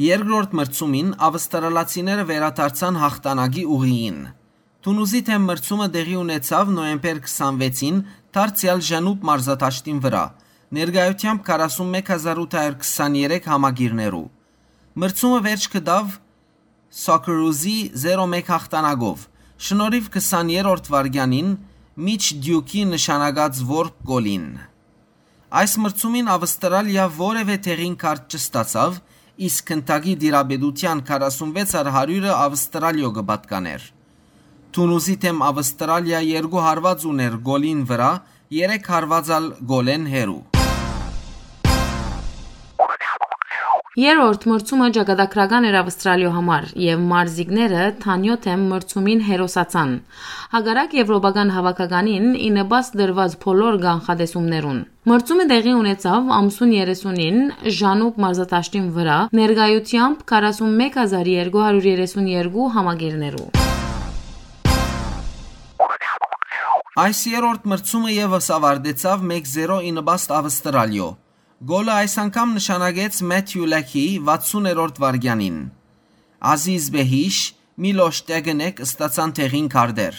Երկրորդ մրցումին ավստրալացիները վերադարձան յաղթանակի ուղիին։ Թունուզի դէմ մրցումը տեղի ունեցաւ նոյեմբեր քսանվեցին դարձեալ Ժանուբ մարզադաշտին վրայ, ներկայութեամբ քառասուն մէկ հազար ութ հարիւր քսաներեք համակիրներու։ Մրցումը վերջ կը տայ Սոկերուզի զերո մէկ յաղթանակով, շնորհիւ քսաներորդ վայրկեանին Միչ Դիուքի նշանակած որբ գոլին։ Այս մրցումին Ավստրալիա որեւէ տեղին քարտ չստացաւ, իսկ գնդակի տիրապետութեան քառասունվեց առ հարիւրը Ավստրալիոյ կը պատկանէր։ Թունուզի դէմ Ավստրալիա երկու հարուած ունէր գոլին վրայ, երեք հարուած ալ գոլէն հեռու։ Երրորդ մրցումը ճակատագրական էր Ավստրալիոյ համար, եւ մարզիկները Թանիոյ դէմ մրցումին հերոսացան, հակառակ եւրոպական հաւաքականին ի նպաստ դրուած բոլոր կանխատեսումներուն։ Մրցումը տեղի ունեցաւ ամսուն երեսունին Ժանուբ մարզադաշտին վրայ, ներկայութեամբ քառասուն մէկ հազար երկու հարիւր երեսուն երկու համակիրներու։ Այս երրորդ մրցումը եւս աւարտեցաւ մէկ զերո ի նպաստ Ավստրալիոյ։ Գոլը այս անգամ նշանակեց Մեթիու Լեքի վաթսուներորդ վայրկեանին։ Ազիզ Բեհիշ, Միլոշ Տեգնեկ ստացան տեղին քարտեր։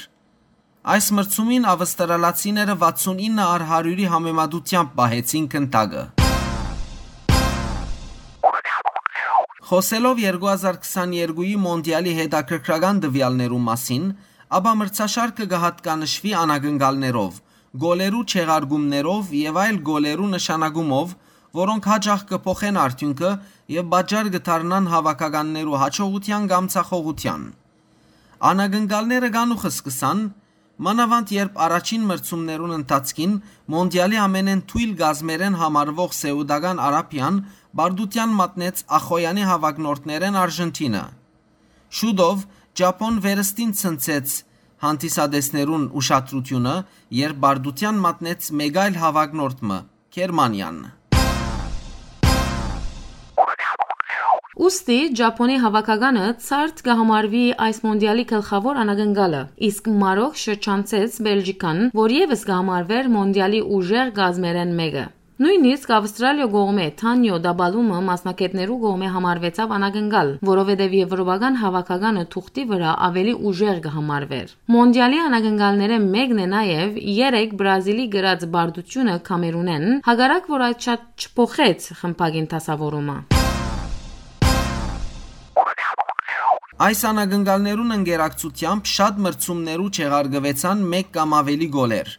Այս մրցումին ավստրալացիները վաթսունինը առ հարիւրի համեմատութեամբ պահեցին գնդակը։ Խօսելով երկու հազար քսաներկուի Մոնտիալի հետաքրքրական տուեալներու մասին, ապա մրցաշարքը կը յատկանշուի անակնկալներով, գոլերու չեղարկումներով եւ այլ գոլերու նշանակումով, որոնք յաճախ կը փոխեն արդիւնքը եւ պատճառ կը դառնան հաւաքականներու յաջողութեան կամ ձախողութեան։ Անակնկալները կանուխ սկսան, մանաւանդ երբ առաջին մրցումներուն ընթացքին Մոնտիալի ամենէն թոյլ կազմերէն համարուող Սէուտական Արաբիան պարտութեան մատնեց ախոյեանի հաւակնորդներէն Արժենթինը։ Շուտով Ճապոն վերստին ցնցեց հանդիսատեսներուն ուշադրութիւնը, երբ պարտութեան մատնեց մէկ այլ հաւակնորդ մը՝ Գերմանիան։ Ուստի Ճապոնի հաւաքականը ցարդ կը համարուի այս մոնտիալի գլխաւոր անակնկալը, իսկ Մարոկ շրջանցեց Բելժիկան, որ եւս կը համարուէր մոնտիալի ուժեղ կազմերէն մէկը։ Նոյնիսկ Ավստրալիոյ կողմէ Թանիոյ տապալումը մասնագէտներու կողմէ համարուեցաւ անակնկալ, որովհետեւ եւրոպական հաւաքականը թուղթի վրայ աւելի ուժեղ կը համարուէր։ Մոնտիալի անակնկալներէն մէկն է նաեւ երեկ Բրազիլի կրած պարտութիւնը Քամերունէն, հակառակ որ այդ շատ չփոխեց խմբակին դասաւորումը։ Այս անակնկալներուն ընկերակցութեամբ շատ մրցումներու չեղարկուեցան մէկ կամ աւելի գոլեր։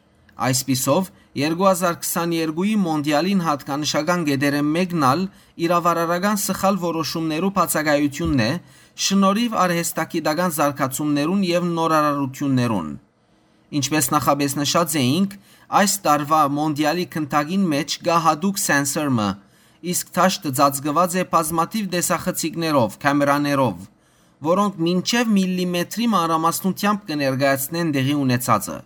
Այսպիսով, երկու հազար քսաներկուի Մոնտիալին յատկանշական կետերէն մէկն ալ իրավարարական սխալ որոշումներու բացակայութիւնն է, շնորհիվ արհեստագիտական զարգացումներուն եւ նորարարութիւններուն։ Ինչպէս նախապէս նշած էինք, այս տարուայ Մոնտիալի գնդակին մէջ կայ յատուկ սենսոր մը, իսկ դաշտը ծածկուած է բազմաթիւ տեսախցիկներով, քամերաներով, որոնք մինչեւ միլիմետրի մանրամասնութեամբ կը ներկայացնեն տեղի ունեցածը։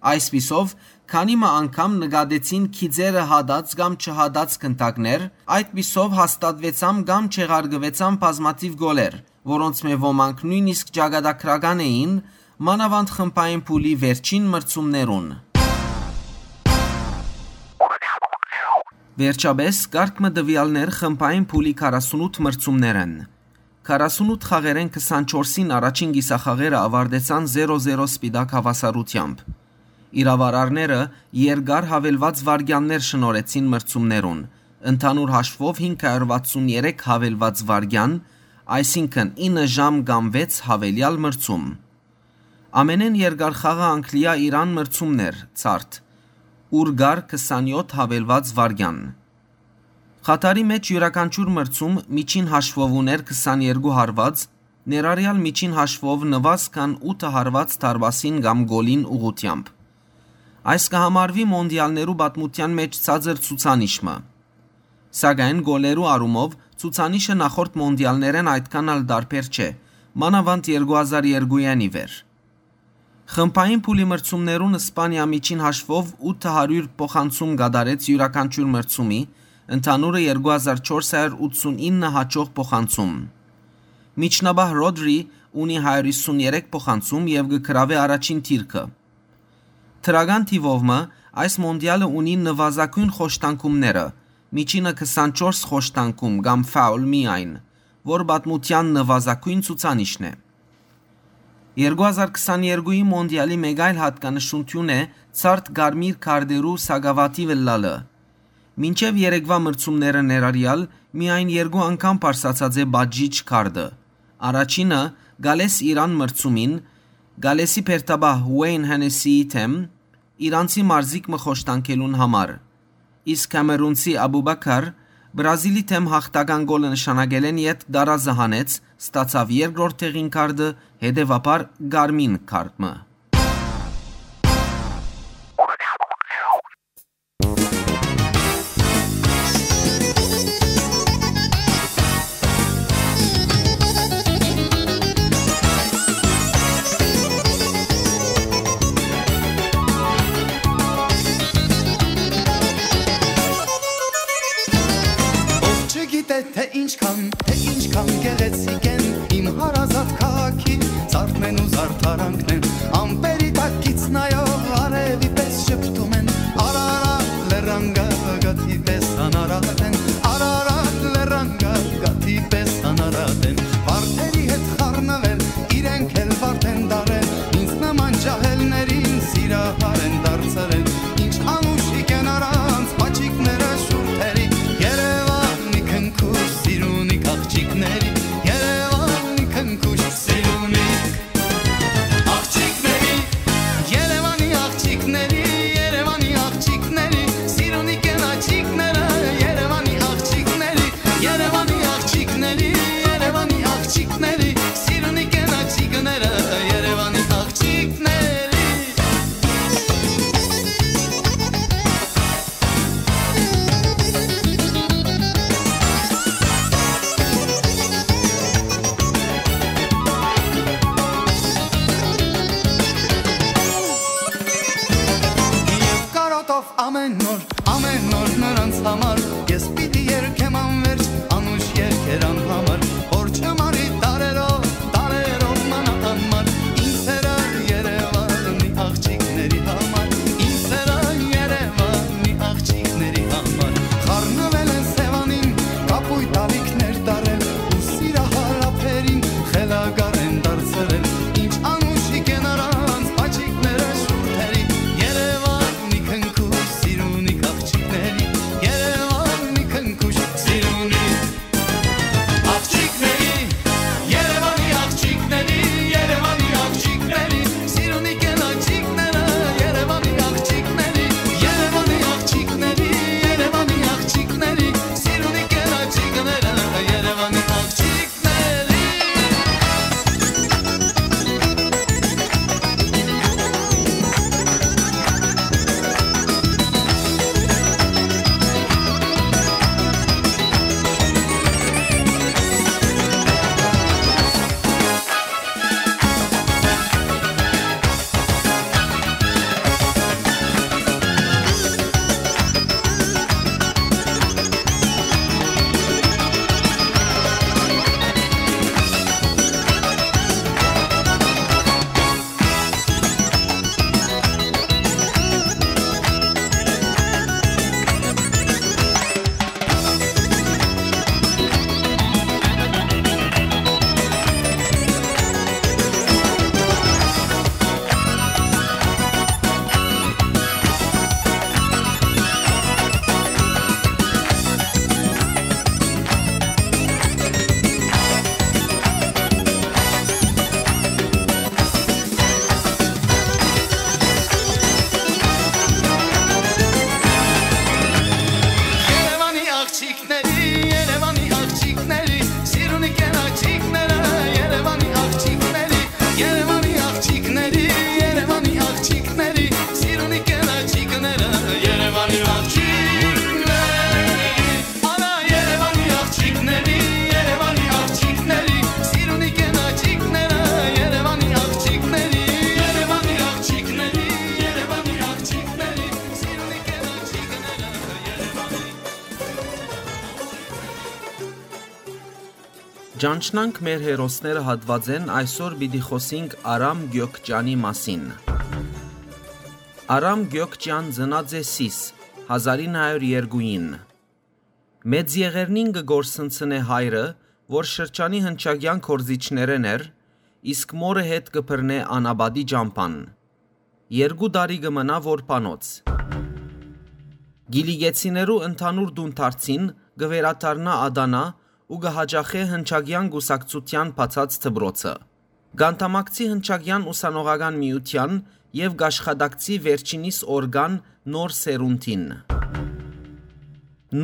Այսպիսով, քանի մը անգամ նկատեցին գիծերը հատած կամ չհատած գնդակներ, այդպիսով հաստատուեցան կամ չեղարկուեցան բազմաթիւ գոլեր, որոնցմէ ոմանք նոյնիսկ ճակատագրական էին, մանաւանդ խմբային փուլի վերջին մրցումներուն։ Վերջապէս, կարգ մը տուեալներ խմբային փուլի քառասունութ մրցումներէն։ Քառասունութ խաղերէն քսանչորսին առաջին կիսախաղերը աւարտեցան զերո զերո սպիտակ հաւասարութեամբ։ Իրաւարարները երկար յաւելուած վայրկեաններ շնորհեցին մրցումներուն, ընդհանուր հաշուով հինգ հարյուր վաթսուն երեք յաւելուած վայրկեան, այսինքն ինը ժամ կամ վեց յաւելեալ մրցում։ Ամենէն երկար խաղը Անգլիա-Իրան մրցումն էր, ցարդ, ուր կար քսանյոթ յաւելուած վայրկեան։ Խաթարի մէջ իւրաքանչիւր մրցում միջին հաշուով ունէր քսաներկու հարուած, ներառեալ միջին հաշուով նուազ քան ութ հարուած դարպասին կամ գոլին ուղղութեամբ։ Այս կը համարուի մոնտիալներու պատմութեան մէջ ցածր ցուցանիշ մը։ Սակայն գոլերու առումով ցուցանիշը նախորդ մոնտիալներէն այդքան ալ տարբեր չէ, մանաւանդ երկու հազար երկուէն ի վեր։ Խմբային փուլի մրցումներուն Սպանիա միջին հաշուով ութ հարիւր փոխանցում կատարեց իւրաքանչիւր մրցումի, ընդհանուրը երկու հազար չորս հարիւր ութսունինը հաճող փոխանցում։ Միջնաբահ Ռոդրի ունի հարիւր հիսուն երեք փոխանցում եւ կը գրաւէ առաջին դիրքը։ Դրական թիւով մը այս մոնտիալը ունի նուազագոյն խոշտանգումները, միջինը քսանչորս խոշտանգում կամ ֆաուլ միայն, որ պատմութեան նուազագոյն ցուցանիշն է։ Երկու հազար քսաներկուի մոնտիալի մէկ այլ յատկանշութիւն է ցարդ կարմիր քարտերու սակաւաթիւ ըլլալը։ Մինչեւ երեկվայ մրցումները ներառեալ միայն երկու անգամ բարձրացած է պատժիչ քարտը։ Առաջինը՝ Գալէս Իրան մրցումին, Գալէսի բերդապահ Ուէյն Հենեսիի դէմ, իրանցի մարզիկ մը խոշտանգելուն համար։ Իսկ կամերունցի Աբուբաքար Բրազիլի դէմ յաղթական գոլը նշանակելէն ետք տարազը հանեց, ստացաւ երկրորդ տեղին քարտը, հետեւաբար՝ կարմին քարտ մը։ Ով չգիտէ, թե ինչքան, թե ինչքան գեղեցիկ են իմ հարազատ քաղաքի ցարդն են ու զարդարանքն են, ամպերի տակ գիծ նայող արևի պես շփթում են, արարատ լեռան գագաթի պես անարատ են, արարատ լեռան գագաթի պես անարատ են, վարդերի հետ խառնվել, իրենք էլ վարդ են դարել, ինձ նման ջահելներին սիրահար են դարձրել, ինչ անուշիկ են առանց բաչիկները շուրթերի, Երևանի քնքուշ սիրունիկ աղջիկների, Երևանի քնքուշ սիրունիկ աղջիկների։ Ճանչնանք մեր հերոսները հատուածէն, այսօր պիտի խօսինք Արամ Գյոկճանի մասին։ Արամ Գյոկճան ծնած է Սիս, հազարին հարիւր երկուին։ Մեծ եղերնին կը կորսնցնէ հայրը, որ շրջանի հնչակեան գործիչներէն էր, իսկ մօրը հետ կը բռնէ անապատի ճամբան։ Երկու տարի կը մնայ որբանոց։ Կիլիկեցիներու ընդհանուր տուն դարձին կը վերադառնայ Ադանա ու կը յաճախէ հնչակեան կուսակցութեան բացած դպրոցը։ Կ'անդամակցի հնչակեան ուսանողական միութեան եւ կ'աշխատակցի վերջինիս օրկան Նոր Սերունդին։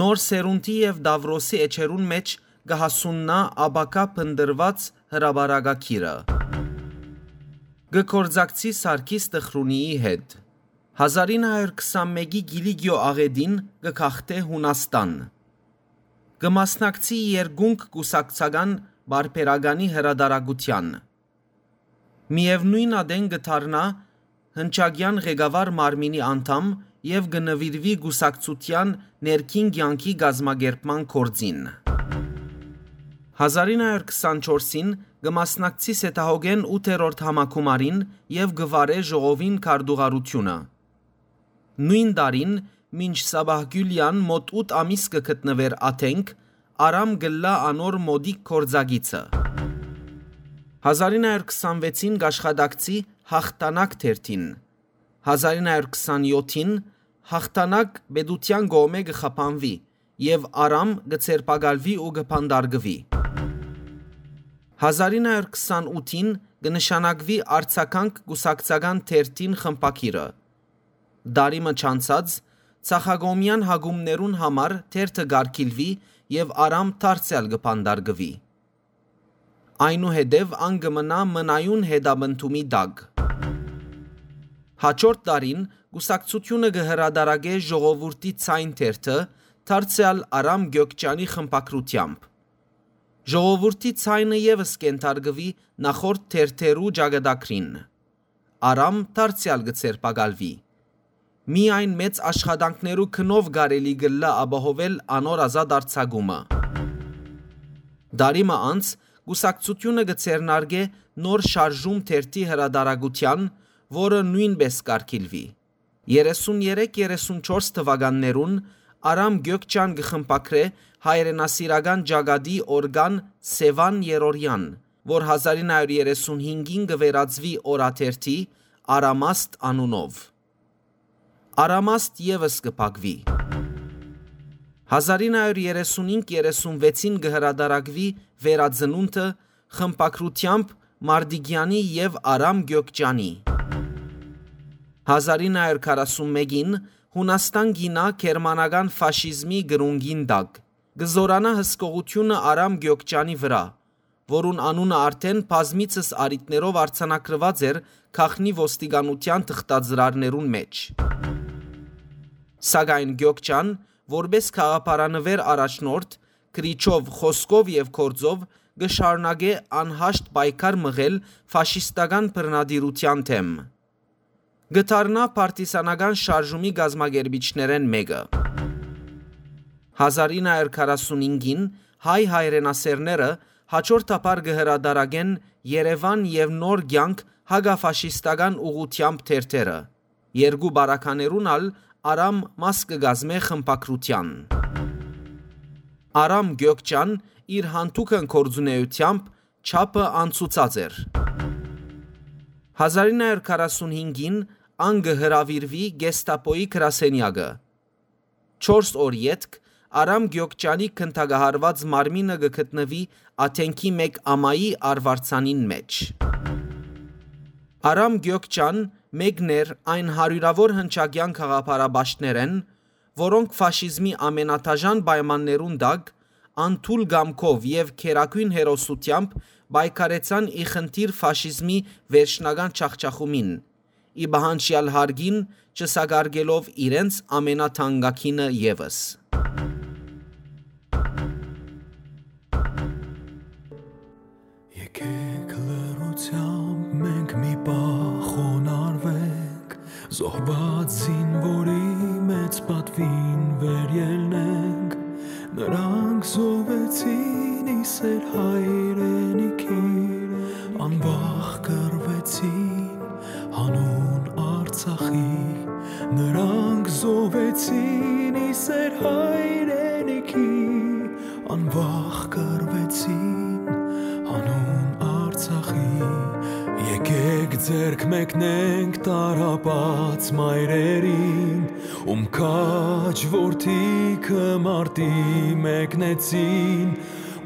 Նոր Սերունդի եւ Տաւրոսի էջերուն մէջ կը հասուննայ ապագայ փնտռուած հրապարակագիրը։ Կը գործակցի Սարգիս Տխրունիի հետ։ Հազարին հարիւր քսանմէկի Կիլիկիոյ աղէտին կը գաղթէ Յունաստան։ Կը մասնակցի երկունք կուսակցական պարբերականի հրատարակութեան։ Միեւնոյն ատեն կը դառնայ հնչակեան ղեկավար մարմինի անդամ եւ կը նուիրուի կուսակցութեան ներքին կեանքի կազմակերպման գործին։ Հազարին հարիւր քսանչորսին կը մասնակցի Սետահոգէն ութերորդ համագումարին եւ կը վարէ ժողովին քարտուղարութիւնը։ Նոյն տարին, մինչ Սաբահ Գիւլեան մօտ ութ ամիս կը գտնուէր Աթենք, Արամ կ'ըլլայ անոր մօտիկ գործակիցը։ Հազարին հարիւր քսանվեցին կ'աշխատակցի Յաղթանակ թերթին։ Հազարին հարիւր քսանեօթին Յաղթանակ պետութեան կողմէ կը խափանուի եւ Արամ կը ձերբակալուի ու կը բանտարկուի։ Հազարին հարիւր քսանութին կը նշանակուի Արձագանք կուսակցական թերթին խմբագիրը։ Տարի մը չանցած, ցախակողմեան հակումներուն համար թերթը կ'արգիլուի եւ Արամ դարձեալ կը բանտարկուի։ Այնուհետեւ ան կը մնայ մնայուն հետապնդումի տակ։ Յաջորդ տարին կուսակցութիւնը կը հրատարակէ Ժողովուրդի ձայն թերթը, դարձեալ Արամ Գյոկճանի խմբագրութեամբ։ Ժողովուրդի ձայնը եւս կ'ենթարկուի նախորդ թերթերու ճակատագրին։ Արամ դարձեալ կը ձերբակալուի։ Միայն մեծ աշխատանքներու գնով կարելի կ'ըլլայ ապահովել անոր ազատ արձակումը։ Տարի մը անց կուսակցութիւնը կը ձեռնարկէ Նոր շարժում թերթի հրատարակութեան, որը նոյնպէս կ'արգիլուի։ Երեսուն երեք երեսուն չորս թուականներուն Արամ Գյոկճան կը խմբագրէ հայրենասիրական ճակատի օրկան Սեւան Երորեան, որ հազարին հարիւր երեսուն հինգին կը վերածուի օրաթերթի Արամաստ անունով։ Արամաստ եւս կը փակուի։ Հազարին հարիւր երեսունհինգ երեսունվեցին կը հրատարակուի Վերածնունդը խմբագրութեամբ Մարտիկեանի եւ Արամ Գյոկճանի։ Հազարին հարիւր քառասունմէկին Յունաստան կ'իյնայ գերմանական ֆաշիզմի կրունկին տակ։ Կը զօրանայ հսկողութիւնը Արամ Գյոկճանի վրայ, որուն անունը արդէն բազմիցս առիթներով արձանագրուած էր գաղտնի ոստիկանութեան թղթածրարներուն մէջ։ Սակայն Գյոկճան, որպէս գաղափարանուէր առաջնորդ, գրիչով, խօսքով եւ գործով, կը շարունակէ անհաշտ պայքար մղել ֆաշիստական բռնատիրութեան դէմ։ Կը դառնայ պարտիզանական շարժումի կազմակերպիչներէն մէկը։ Հազարին հարիւր քառասունհինգին հայ հայրենասէրները յաջորդաբար կը հրատարակեն Երեւան եւ Նոր կեանք հակաֆաշիստական ուղղութեամբ թերթերը։ Երկու պարագաներուն ալ Արամ մաս կը կազմէ խմբագրութեան։ Արամ Գյոկճան իր յանդուգն գործունէութեամբ չափը անցուցած էր։ Հազարին հարիւր քառասունհինգին ան կը հրաւիրուի Գեստապոյի գրասենեակը։ Չորս օր ետք Արամ Գյոկճանի գնդակահարուած մարմինը կը գտնուի Աթենքի մէկ ամայի արուարձանին մէջ։ Արամ Գյոկճան մէկն էր այն հարիւրաւոր հնչակեան գաղափարապաշտներէն, որոնք ֆաշիզմի ամենադաժան պայմաններուն տակ, անթույլ կամքով եւ գերագոյն հերոսութեամբ պայքարեցան ի խնդիր ֆաշիզմի վերջնական ջախջախումին, ի պահանջեալ հարգին չսակարկելով իրենց ամենաթանկագինը եւս։ Եկեք լռությամբ մենք մի պահ խոնարհվենք, զոհված զինվորի մեծ պատվին վերելնենք։ Նրանք զոհվեցին ի սեր հայր Ձեռք մեկնենք տառապած մայրերին, ում քաջ որդիքը մարտի մեկնեցին,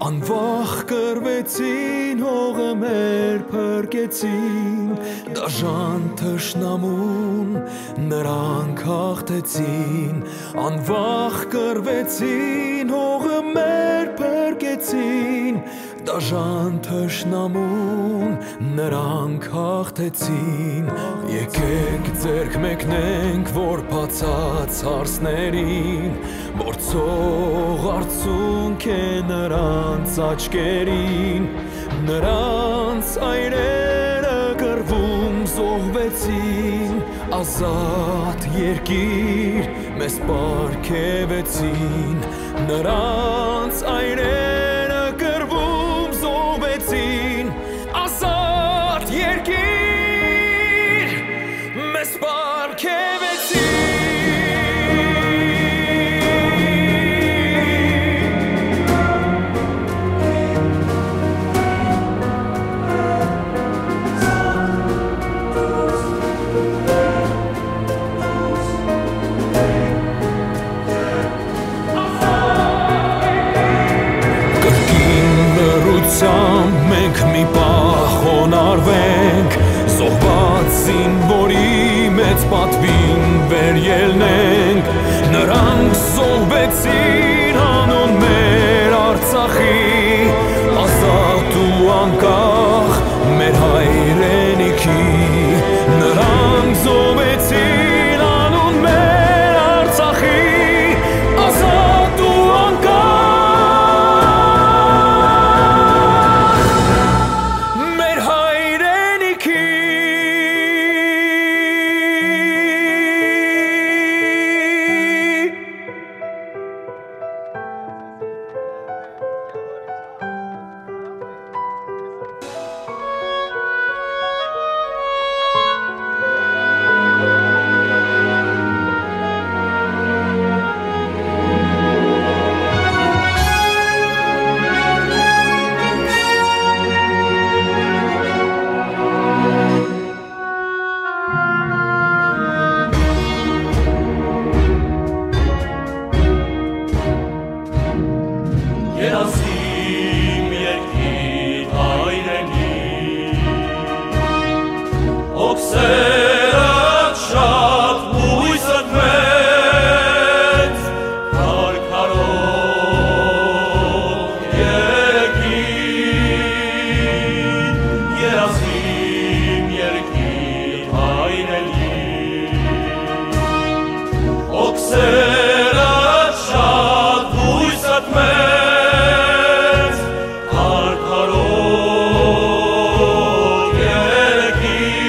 անվախ կռվեցին, հողը մեր փրկեցին, դաժան թշնամուն նրանք հաղթեցին, անվախ կռվեցին, հողը մեր փրկեցին, դաժան թշնամուն նրանք հաղթեցին։ Եկեք ձեռք մեկնենք, որ բացած հարցներին, որ ցող արցունք է նրանց աչքերին, նրանց այրերը կռվում զոհվեցին, ազատ երկիր մեզ պարգեւեցին, նրանց այրերը կռվում զոհվեցին, ազատ երկիր մեզ պարգեւեցին։ Կրկին լռությամբ մենք մի պահ խոնարհվենք, զոհված զինվորի մեծ պատուին վերելնենք։ Նրանք զոհվեցին անուն մեր Արցախի, ազատ ու անկախ մեր հայրենիքի։ Նրանք զոհվեցին անուն մեր Արցախի, ազատ ու անկախ մեր հայրենիքի։ Երազի իմ երկիր հայրենի, հոգսերդ շատ, հույսդ մեծ, քարքարոտ երկիր, երազի իմ երկիր հայրենի, հոգսերդ շատ, հույսդ մեծ, քարքարոտ երկիր։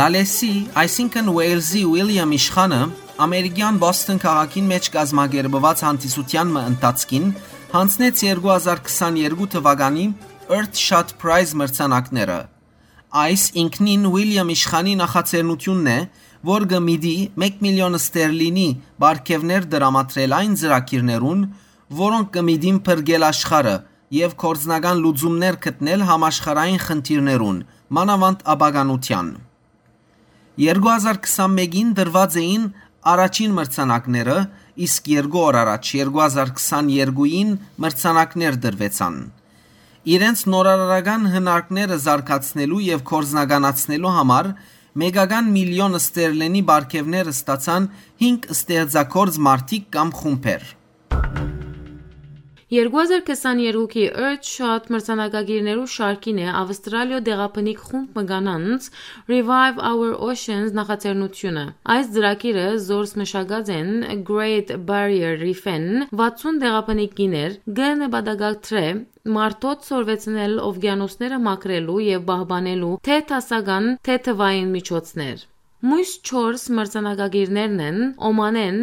Ալեսի, այսինքն Ուեյլզի Ուիլյամ իշխանը, ամերիկյան Բոսթոն քաղաքին մէջ կազմակերպուած հանդիսութեան մը ընթացքին յանձնեց երկու հազար քսաներկու թուականի Earthshot Prize մրցանակները։ Այս ինքնին Ուիլյամ իշխանի նախաձեռնութիւնն է, որ կը միտի մէկ միլիոն ստերլինի պարգեւներ տրամադրել այն ծրագիրներուն, որոնք կը միտին փրկել աշխարհը եւ գործնական լուծումներ գտնել համաշխարհային խնդիրներուն, մանաւանդ ապականութեան։ Երկու հազար քսանմէկին տրուած էին առաջին մրցանակները, իսկ երկու օր առաջ, երկու հազար քսաներկուին, մրցանակներ տրուեցան։ Իրենց նորարարական հնարքները զարգացնելու եւ գործնականացնելու համար մեկական միլիոն ստերլինի պարգեւներ ստացան հինգ ստեղծագործ մարդիկ կամ խումբեր։ Երկու հազար քսաներկուի Earthshot մրցանակակիրներու շարքին է Ավստրալիոյ տեղաբնիկ խումբ մը կանանց Revive Our Oceans նախաձեռնութիւնը։ Այս ծրագիրը զորս մշակած են Great Barrier Reef-ին վաթսուն տեղաբնիկ կիներ, կը նպատակադրէ մարդոց սորվեցնել օվկիանոսները մաքրելու եւ պահպանելու թէ դասական, թէ թուային միջոցներ։ Մոյս չորս մրցանակակիրներն են Օմանէն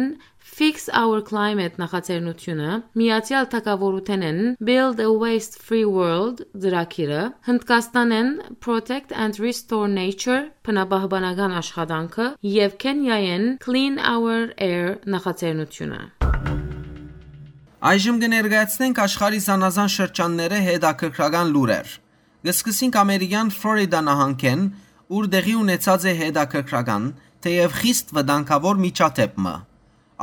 Fix Our Climate նախաձեռնութիւնը, Միացեալ Թագաւորութենէն Build a Waste Free World ծրագիրը, Հնդկաստանէն Protect and Restore Nature բնապահպանական աշխատանքը եւ Քենիայէն Clean Our Air նախաձեռնութիւնը։ Այժմ կը ներկայացնենք աշխարհի զանազան շրջաններէ հետաքրքրական լուրեր։ Կը սկսենք ամերիկյան Ֆլորիդա նահանգէն, ուր տեղի ունեցած է հետաքրքրական, թէեւ խիստ վտանգաւոր միջադէպ մը։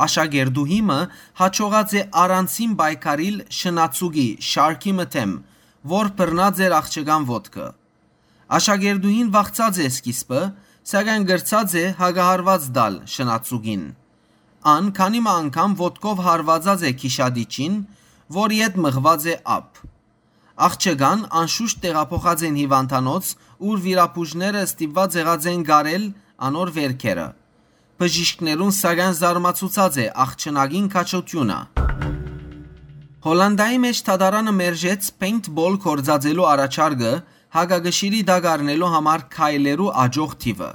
Աշակերտուհի մը յաջողած է առանձին պայքարիլ շնացուկի շարքի մը դէմ, որ բռնած էր աղջկան ոտքը։ Աշակերտուհին վախցած է սկիզբը, սակայն կրցած է հակահարուած տալ շնացուկին։ Ան քանի մը անգամ ոտքով հարվածած է գիշատիչին, որ ետ մղուած է ափ։ Աղջկան անշուշտ տեղափոխած են հիվանդանոց, ուր վիրաբուժները ստիպված եղած են կարել անոր վերքերը։ Բժիշկներուն սակայն զարմացուցած է աղջնակին քաջութիւնը։ Հոլանդայի մէջ դատարանը մերժեց paintball գործածելու առաջարկը հակակշիռի տակ առնելու համար քայլերու աջող թիւը։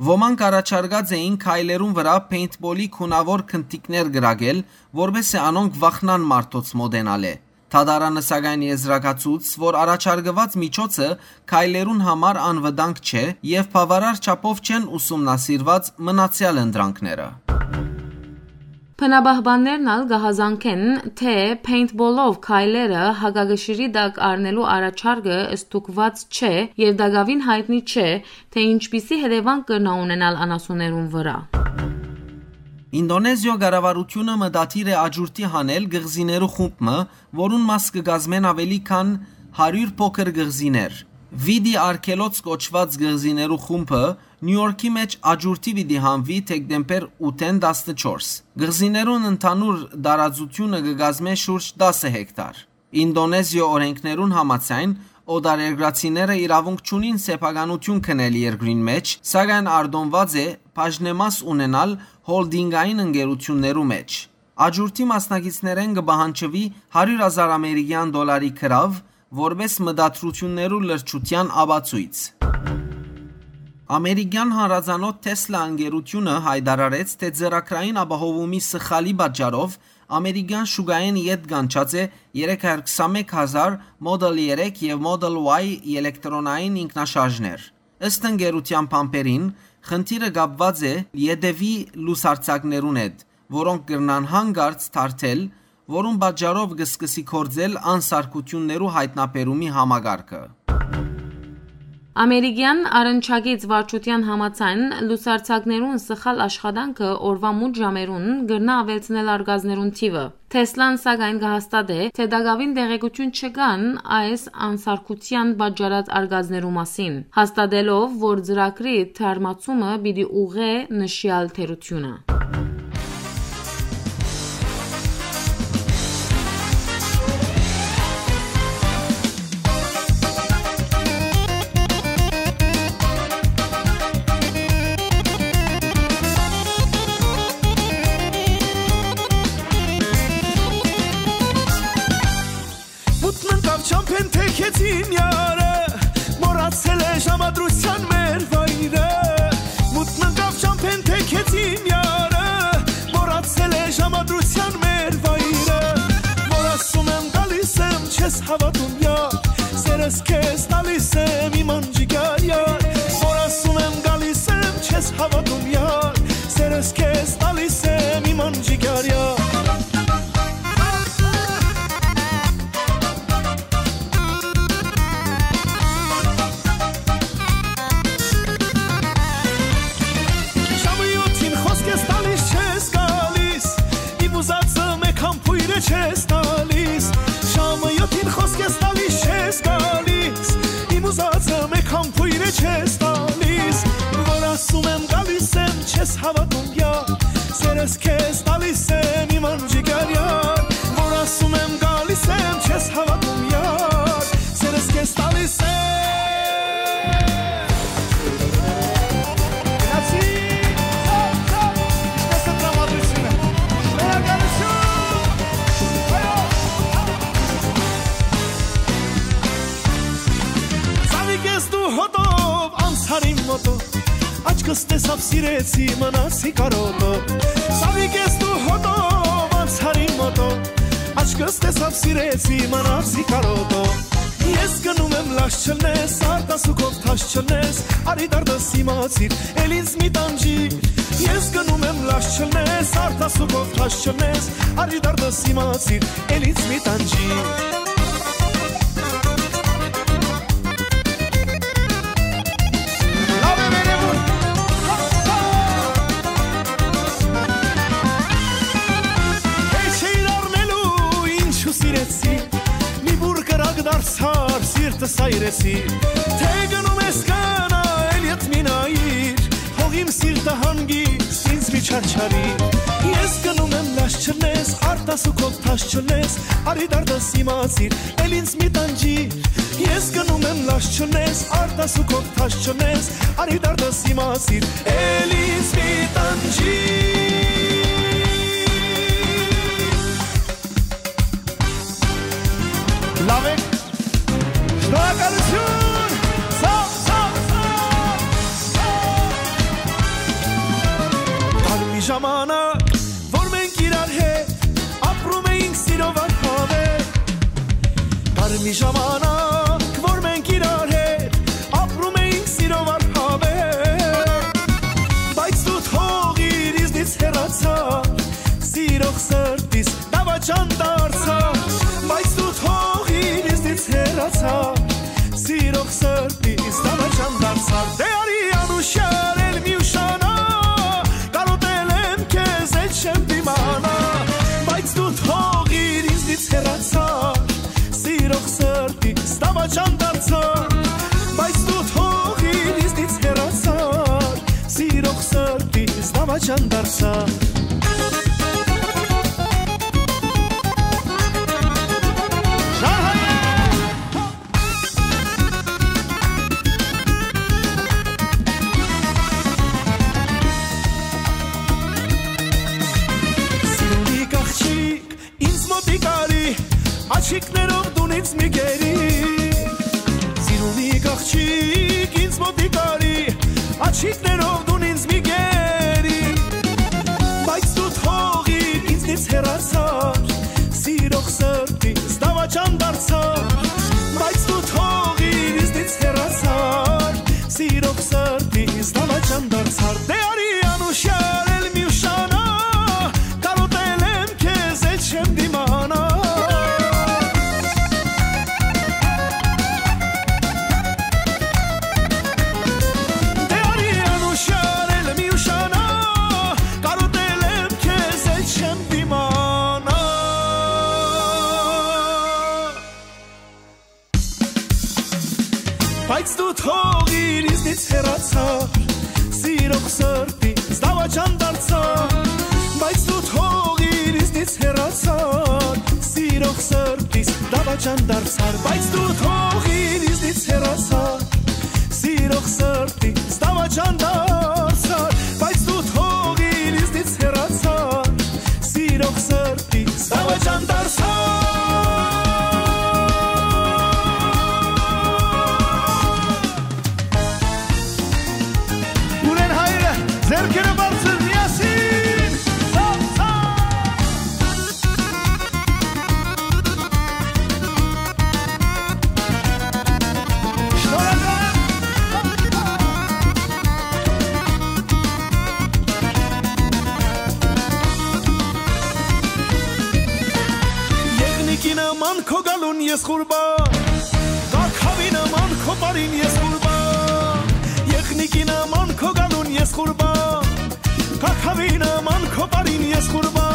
Ոմանք առաջարկած էին քայլերուն վրայ paintball-ի գունաւոր գնդիկներ կրակել, որպէս զի անոնք վախնան մարդոց մօտենալէ։ Դատարանը սակայն եզրակացուց, որ առաջարկուած միջոցը քայլերուն համար անվտանգ չէ եւ բաւարար չափով չեն ուսումնասիրուած մնացեալ ընտրանքները։ Բնապահպաններն ալ կը հազանգեն, թէ paintball-ով քայլերը հակակշիռի տակ առնելու առաջարկը ստուգուած չէ եւ տակաւին յայտնի չէ, թէ ինչպիսի հետեւանք կրնայ ունենալ անասուններուն վրայ։ Ինդոնեզիոյ կառավարութիւնը մտադիր է աճուրդի հանել կղզիներու խումբ մը, որուն մաս կը կազմեն աւելի քան հարիւր փոքր կղզիներ։ Վիտի արգելոց կոչուած կղզիներու խումբը Նիու Յորքի մէջ աճուրդի պիտի հանուի դեկտեմբեր ութ-ին տասնչորս։ Կղզիներուն ընդհանուր տարածութիւնը կը կազմէ շուրջ տասը հեկտար։ Ինդոնեզիոյ օրէնքներուն համաձայն, օտարերկրացիները իրաւունք չունին սեփականութիւն քնել երկրին մէջ, սակայն արտոնուած է բաժնեմաս ունենալ հոլդինգային ընկերութիւններու մէջ։ Աճուրդի մասնակիցներէն կը պահանջուի հարիւր հազար ամերիկեան դոլարի գրաւ, որպէս մտադրութիւններու լրջութեան ապացոյց։ Ամերիկեան հանրածանօթ Tesla ընկերութիւնը յայտարարեց, թէ ծրագրային ապահովումի սխալի պատճառով ամերիկեան շուկայէն ետ կանչած է երեք հարյուր քսանմեկ հազար Model երեք եւ Model Y ելեկտրոնային ինքնաշարժներ։ Ըստ ընկերութեան բանբերին, խնդիրը կապուած է ետեւի լուսարձակներուն հետ, որոնք կրնան հանկարծ թարթել, որուն պատճառով կը սկսի գործել անսարկութիւններու յայտնաբերումի համակարգը։ Ամերիկեան առնչակից վարչութեան համաձայն, լուսարձակներուն սխալ աշխատանքը օրուայ մութ ժամերուն կրնայ աւելցնել արկածներուն թիւը։ Թեսլան, սակայն, կը հաստատէ, թէ տակաւին տեղեկութիւն չկան այս անսարկութեան պատճառած արկածներու մասին, հաստատելով, որ ծրագրի թարմացումը պիտի ուղղէ նշեալ թերութիւնը։ Մութն ընկաւ չամբէն թեքեցին յարը, մոռացել է ժամադրութեան մեր վայրը։ Քեզ տալիս եմ իմ անջիկ արյար, որ ասում եմ գալիս եմ, չես հաւատում, յար, սերս քեզ տալիս եմ։ Գնացի, ցա, ցա, ինչպես է տրամադրությունը։ Շնորհակալություն։ Այո։ Ծաղիկ ես դու հոտով, անցար իմ մոտով, աչքս տեսաւ, սիրեցի, մնացի կարոտով։ Ծաղիկ ես դու հոտով, անցար իմ մոտով, աչքս տեսաւ, սիրեցի, մնացի կարոտով։ Ես գնում եմ, լաչ չլնես, արտասուքով թաշ չլնես, արի դարդս իմացիր, էլ ինձ մի տանջի։ Ես գնում եմ, լաչ չլնես, արտասուքով թաշ չլնես, արի դարդս իմացիր, էլ ինձ մի տանջի։ Լաւ է, վերևում։ Հեչ էիր առնելու, ինչու սիրեցի, մի բուռ կրակ դարձար, սիրտս այրեցի, թե գնում ես, կնա, էլ ետ մի նայիր, թող իմ սիրտը հանգիստ ինձ մի չարչարի։ Ես գնում եմ, լաչ չլնես, արտասուքով թաշ չլնես, արի դարդս իմացիր, էլ ինձ մի տանջի։ Ես գնում եմ, լաչ չլնես, արտասուքով թաշ չլնես, արի դարդս իմացիր, էլ ինձ մի տանջի։ Լաւ է։ Շնորհակալություն։ Ցաւ, ցաւ, ցաւ, ցաւ։ Կար մի ժամանակ, որ մենք իրար հետ ապրում էինք սիրով անհավեր։ Կար մի ժամանակ, որ մենք իրար հետ ապրում էինք սիրով անհավեր, բայց դու թողիր, ինձնից հեռացար, սիրող սրտիս դավաճան դարձար, բայց դու թողիր, ինձնից հեռացար, սիրող սրտիս դավաճան դարձար։ Դե արի անուշ արել, մի ուշանա, կարոտել եմ քեզ, էլ չեմ դիմանա, բայց դու թողիր, ինձնից հեռացար, սիրող սրտիս դավաճան դարձար, բայց դու թողիր, ինձնից հեռացար, սիրող սրտիս դավաճան դարձար։ Շահայ է։ Սիրունի կաղջիկ, ինձ մոտիկ արի, աջիկներով դուն ինձ մի գերի։ Սիրունի կաղջիկ, ինձ մոտիկ արի, աջիկներով դուն ինձ մի գերի, բայց դու թողիր, ինձնից հեռացար, սիրող սրտիս դավաճան դարձար, բայց դու թողիր, ինձնից հեռացար, սիրող սրտիս դավաճան դարձար։ Դե արի անուշ արել, մի ուշանա, կարոտել եմ քեզ, էլ չեմ դիմանա։ Դե արի անուշ արել, մի ուշանա, կարոտել եմ քեզ, էլ չեմ դիմանա։ Բայց դու թողիր, ինձնից հեռացար, սիրող սրտիս դավաճան դարձար, բայց դու թողիր, ինձնից հեռացար, սիրող սրտիս դավաճան դարձար, բայց դու թողիր, ինձնից հեռացար, սիրող սրտիս դավաճան դարձար, բայց դու թողիր, ինձնից հեռացար, սիրող սրտիս դավաճան դարձար։ Ունեն հայրը, ձեռքերը բարձր միասին, ցաւ, ցաւ։ Շնորհակալ եմ։ Եղնիկի նման քո գալուն ես ղուրբա, կաքավի նման քո պարին ես ղուրբա, եղնիկի նման քո գալուն ես ղուրբա, կաքավի նման քո պարին ես ղուրբա։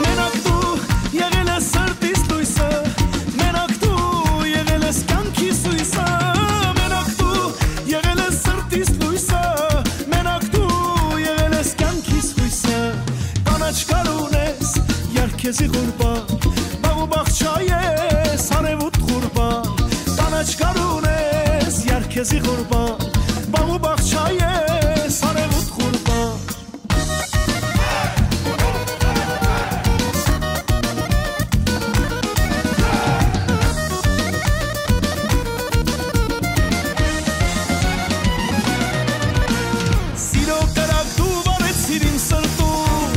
Մենակ դու եղել ես սրտիս լույսը, մենակ դու եղել ես կյանքիս հույսը, մենակ դու եղել ես սրտիս լույսը, մենակ դու եղել ես կյանքիս հույսը։ Քեզի ղուրբան, բաղ ու բաղ չայ ես, արեւուտ ղուրբան, կանաչ գարուն ես, յար քեզի ղուրբան, բաղ ու բաղ չայ ես, արեւուտ ղուրբան։ Սիրո կրակ դու վառեցիր իմ սրտում,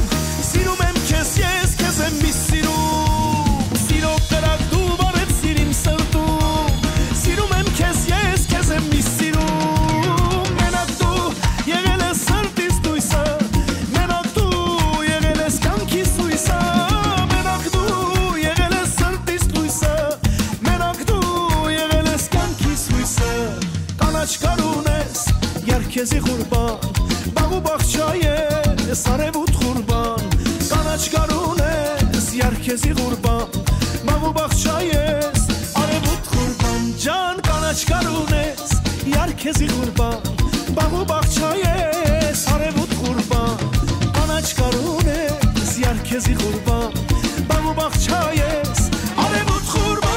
սիրում եմ քեզ ես, քեզ եմ միշտ սիրում։ Սիրո կրակ դու վառեցիր իմ սրտում, սիրում եմ քեզ ես, քեզ եմ միշտ սիրում։ Մենակ դու եղել ես սրտիս լոյսը, մենակ դու եղել ես կյանքիս լոյսը, մենակ դու եղել ես սրտիս լոյսը, մենակ դու եղել ես կյանքիս լոյսը։ Կանաչ գարուն ես, յար քեզի ղուրբան, բաղ ու բաղ չայ ես, արեւուտ ղուրբան, կանաչ գարուն ես, յար քեզի ղուրբան, բաղ ու բաղ չայ ես, արեւուտ ղուրբան, ջան, կանաչ գարուն ես, յար քեզի ղուրբան, բաղ ու բաղ չայ ես, արեւուտ ղուրբան, կանաչ գարուն ես, յար քեզի ղուրբան, բաղ ու բաղ չայ ես, արեւուտ ղուրբան։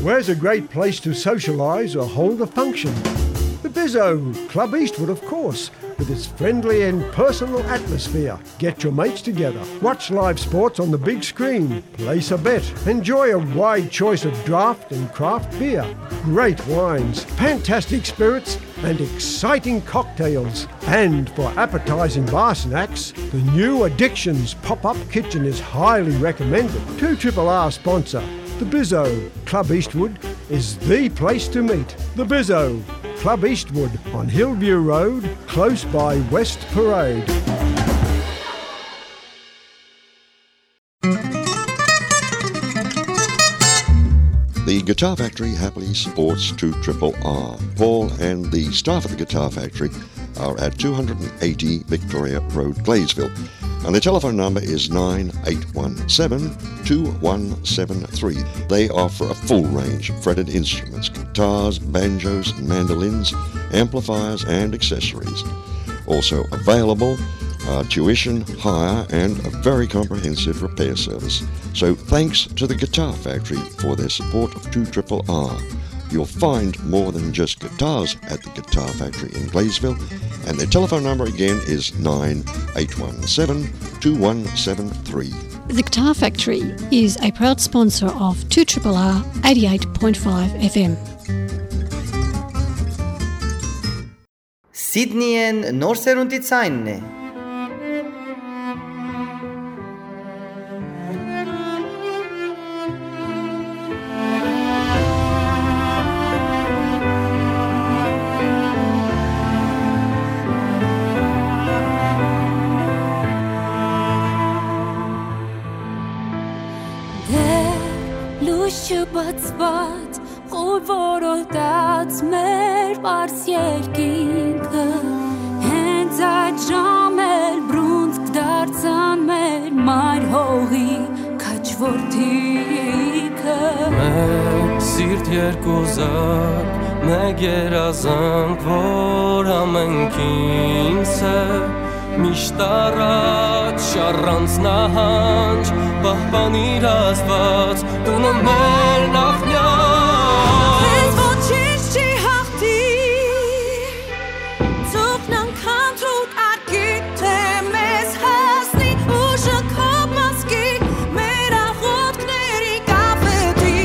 Where's a great place to socialise or hold a function? The Bizzo, Club Eastwood, of course, with its friendly and personal atmosphere. Get your mates together, watch live sports on the big screen, place a bet, enjoy a wide choice of draft and craft beer, great wines, fantastic spirits, and exciting cocktails. And for appetising bar snacks, the new Addictions pop-up kitchen is highly recommended. Two Triple R sponsor, the Bizzo. Club Eastwood is the place to meet. The Bizzo, Club Eastwood on Hillview Road, close by West Parade. The Guitar Factory happily supports two triple R. Paul and the staff at the Guitar Factory are at two hundred and eighty Victoria Road, Gladesville. And the telephone number is nine eight one seven, two one seven three. They offer a full range of fretted instruments, guitars, banjos, mandolins, amplifiers, and accessories. Also available are tuition, hire, and a very comprehensive repair service. So thanks to the Guitar Factory for their support of two triple R. You'll find more than just guitars at the Guitar Factory in Gladesville, and their telephone number again is nine eight one seven, two one seven three. The Guitar Factory is a proud sponsor of two triple R eighty-eight point five F M. Սիդնիեն նոր սերունդի ցայնն է։ Դեռ լույս չբացված, խուլ որոտած մեր պարզ երկինքը, հենց այդ ժամեր բռունցք դարձան մեր մայր հողի քաջ որդիքը։ Մեկ սիրտ, երկու զակ, մեկ երազանք, որ ամենքին սեր, միշտ առաջ, առանց նահանջ, պահպանիր Աստված, տունը մեր նախնյալ։ Քեզ ոչինչ չի հաղթի, թող ննքան դու կարգի, թե մեզ հասնի ուժը քո մազկի, մեր աղոթքների կապետի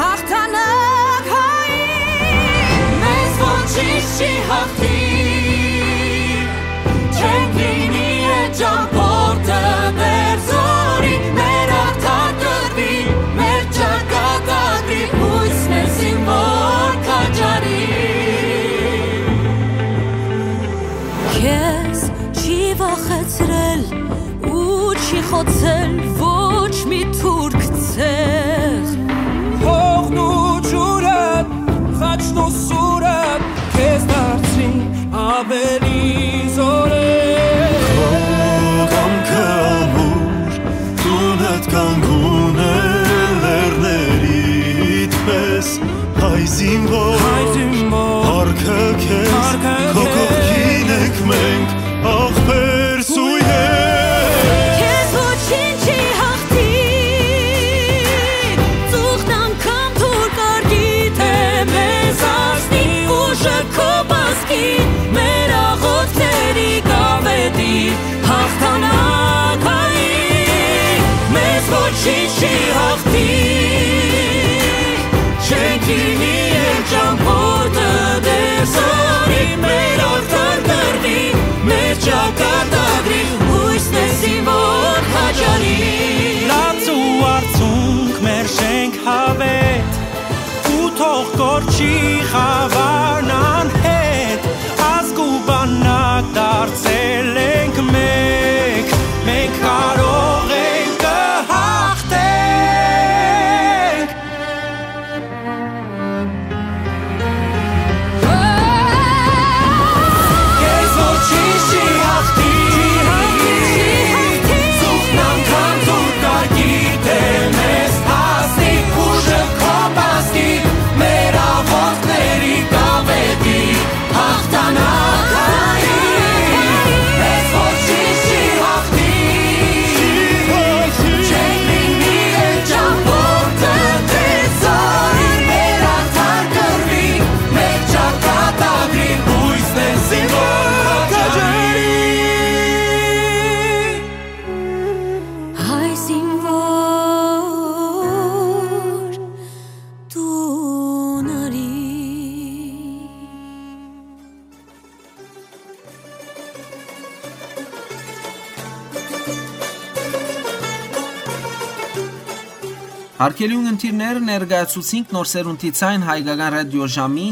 հաղթանակ հայի, մեզ ոչինչ չի հաղթի։ Չենք լինի այդ ճամբորդը մեր զորի, մեր արդար կռվի, մեր ճակատագրի, հույս մեզի որ քաջարի։ Քեզ չի վախեցրել ու չի խոցել ոչ մի թուրք ցեղ։ Հողն ու ջուրը, խաչն ու սուրը քեզ դարձրին ավելի զորեղ։ Քո կամքը ամուր, Ինչի հաղթի, չենք լինի են ճամփորդը դեր զորի, մեր ախտան կրվի, մեր ճակատագրի, հույսն է զինվոր հաճարի։ Լաց ու արցունք մեր շենք հավետ, ու թող կորչի խավարն անհետ, ազգ ու բանակ դարձել ենք մեկ, մենք կարող ենք, կհաղթենք։ Քեզ ոչինչ չի հաղթի, զուգն անգամ դուր կար գիտեմ ես, հասնի ուժը քո բազկի, մեր աղոթքների կավետի հաղթանակային, մեզ ոչինչ չի հաղթի, չենք լինի են ճամփորդը, դեր զորի, մեր արդար կռվի, մեր ճակատագրի, հույսն է զինվոր հաճարի։ Հայ զինվոր տուն արի։ Հարգելի ունգընտիրներ, ներկայացուցինք Նոր Սերունդի Ցայն հայկական ռադիոժամի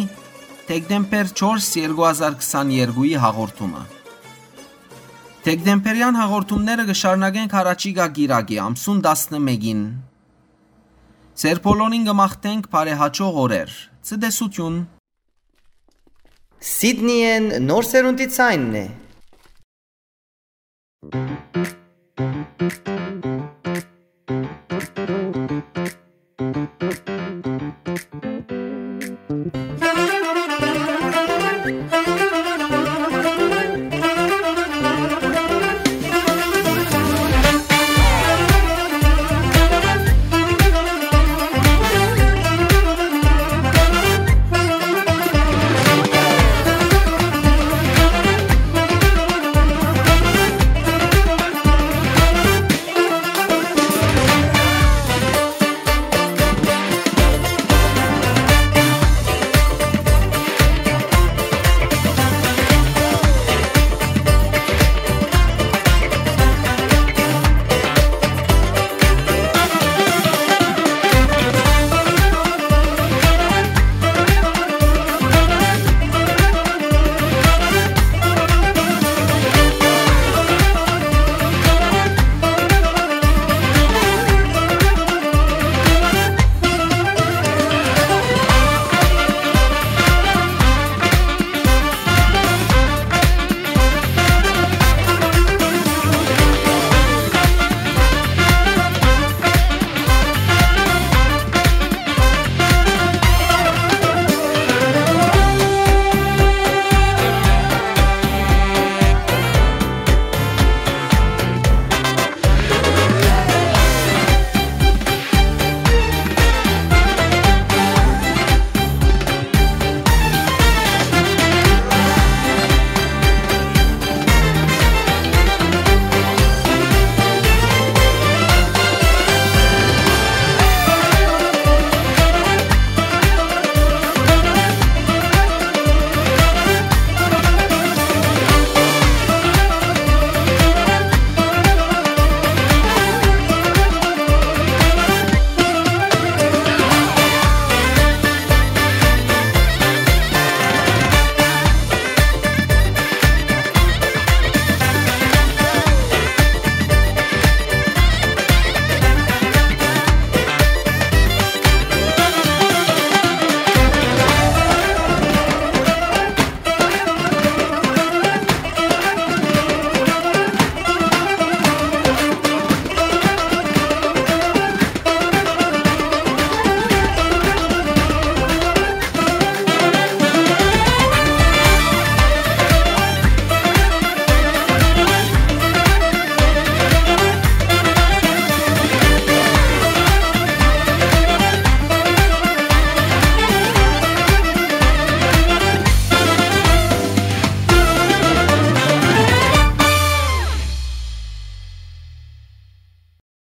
դեկտեմբեր չորս, երկու հազար քսաներկուի հաղորդումը։ Դեկտեմբերյան հաղորդումները կը շարունակենք յառաջիկայ կիրակի, ամսուն տասնմէկին։ Ձեր բոլորին կը մաղթենք բարեհաճող օրեր։ Ցտեսություն։ Սիդնիեն Նոր Սերունդի Ցայնն է։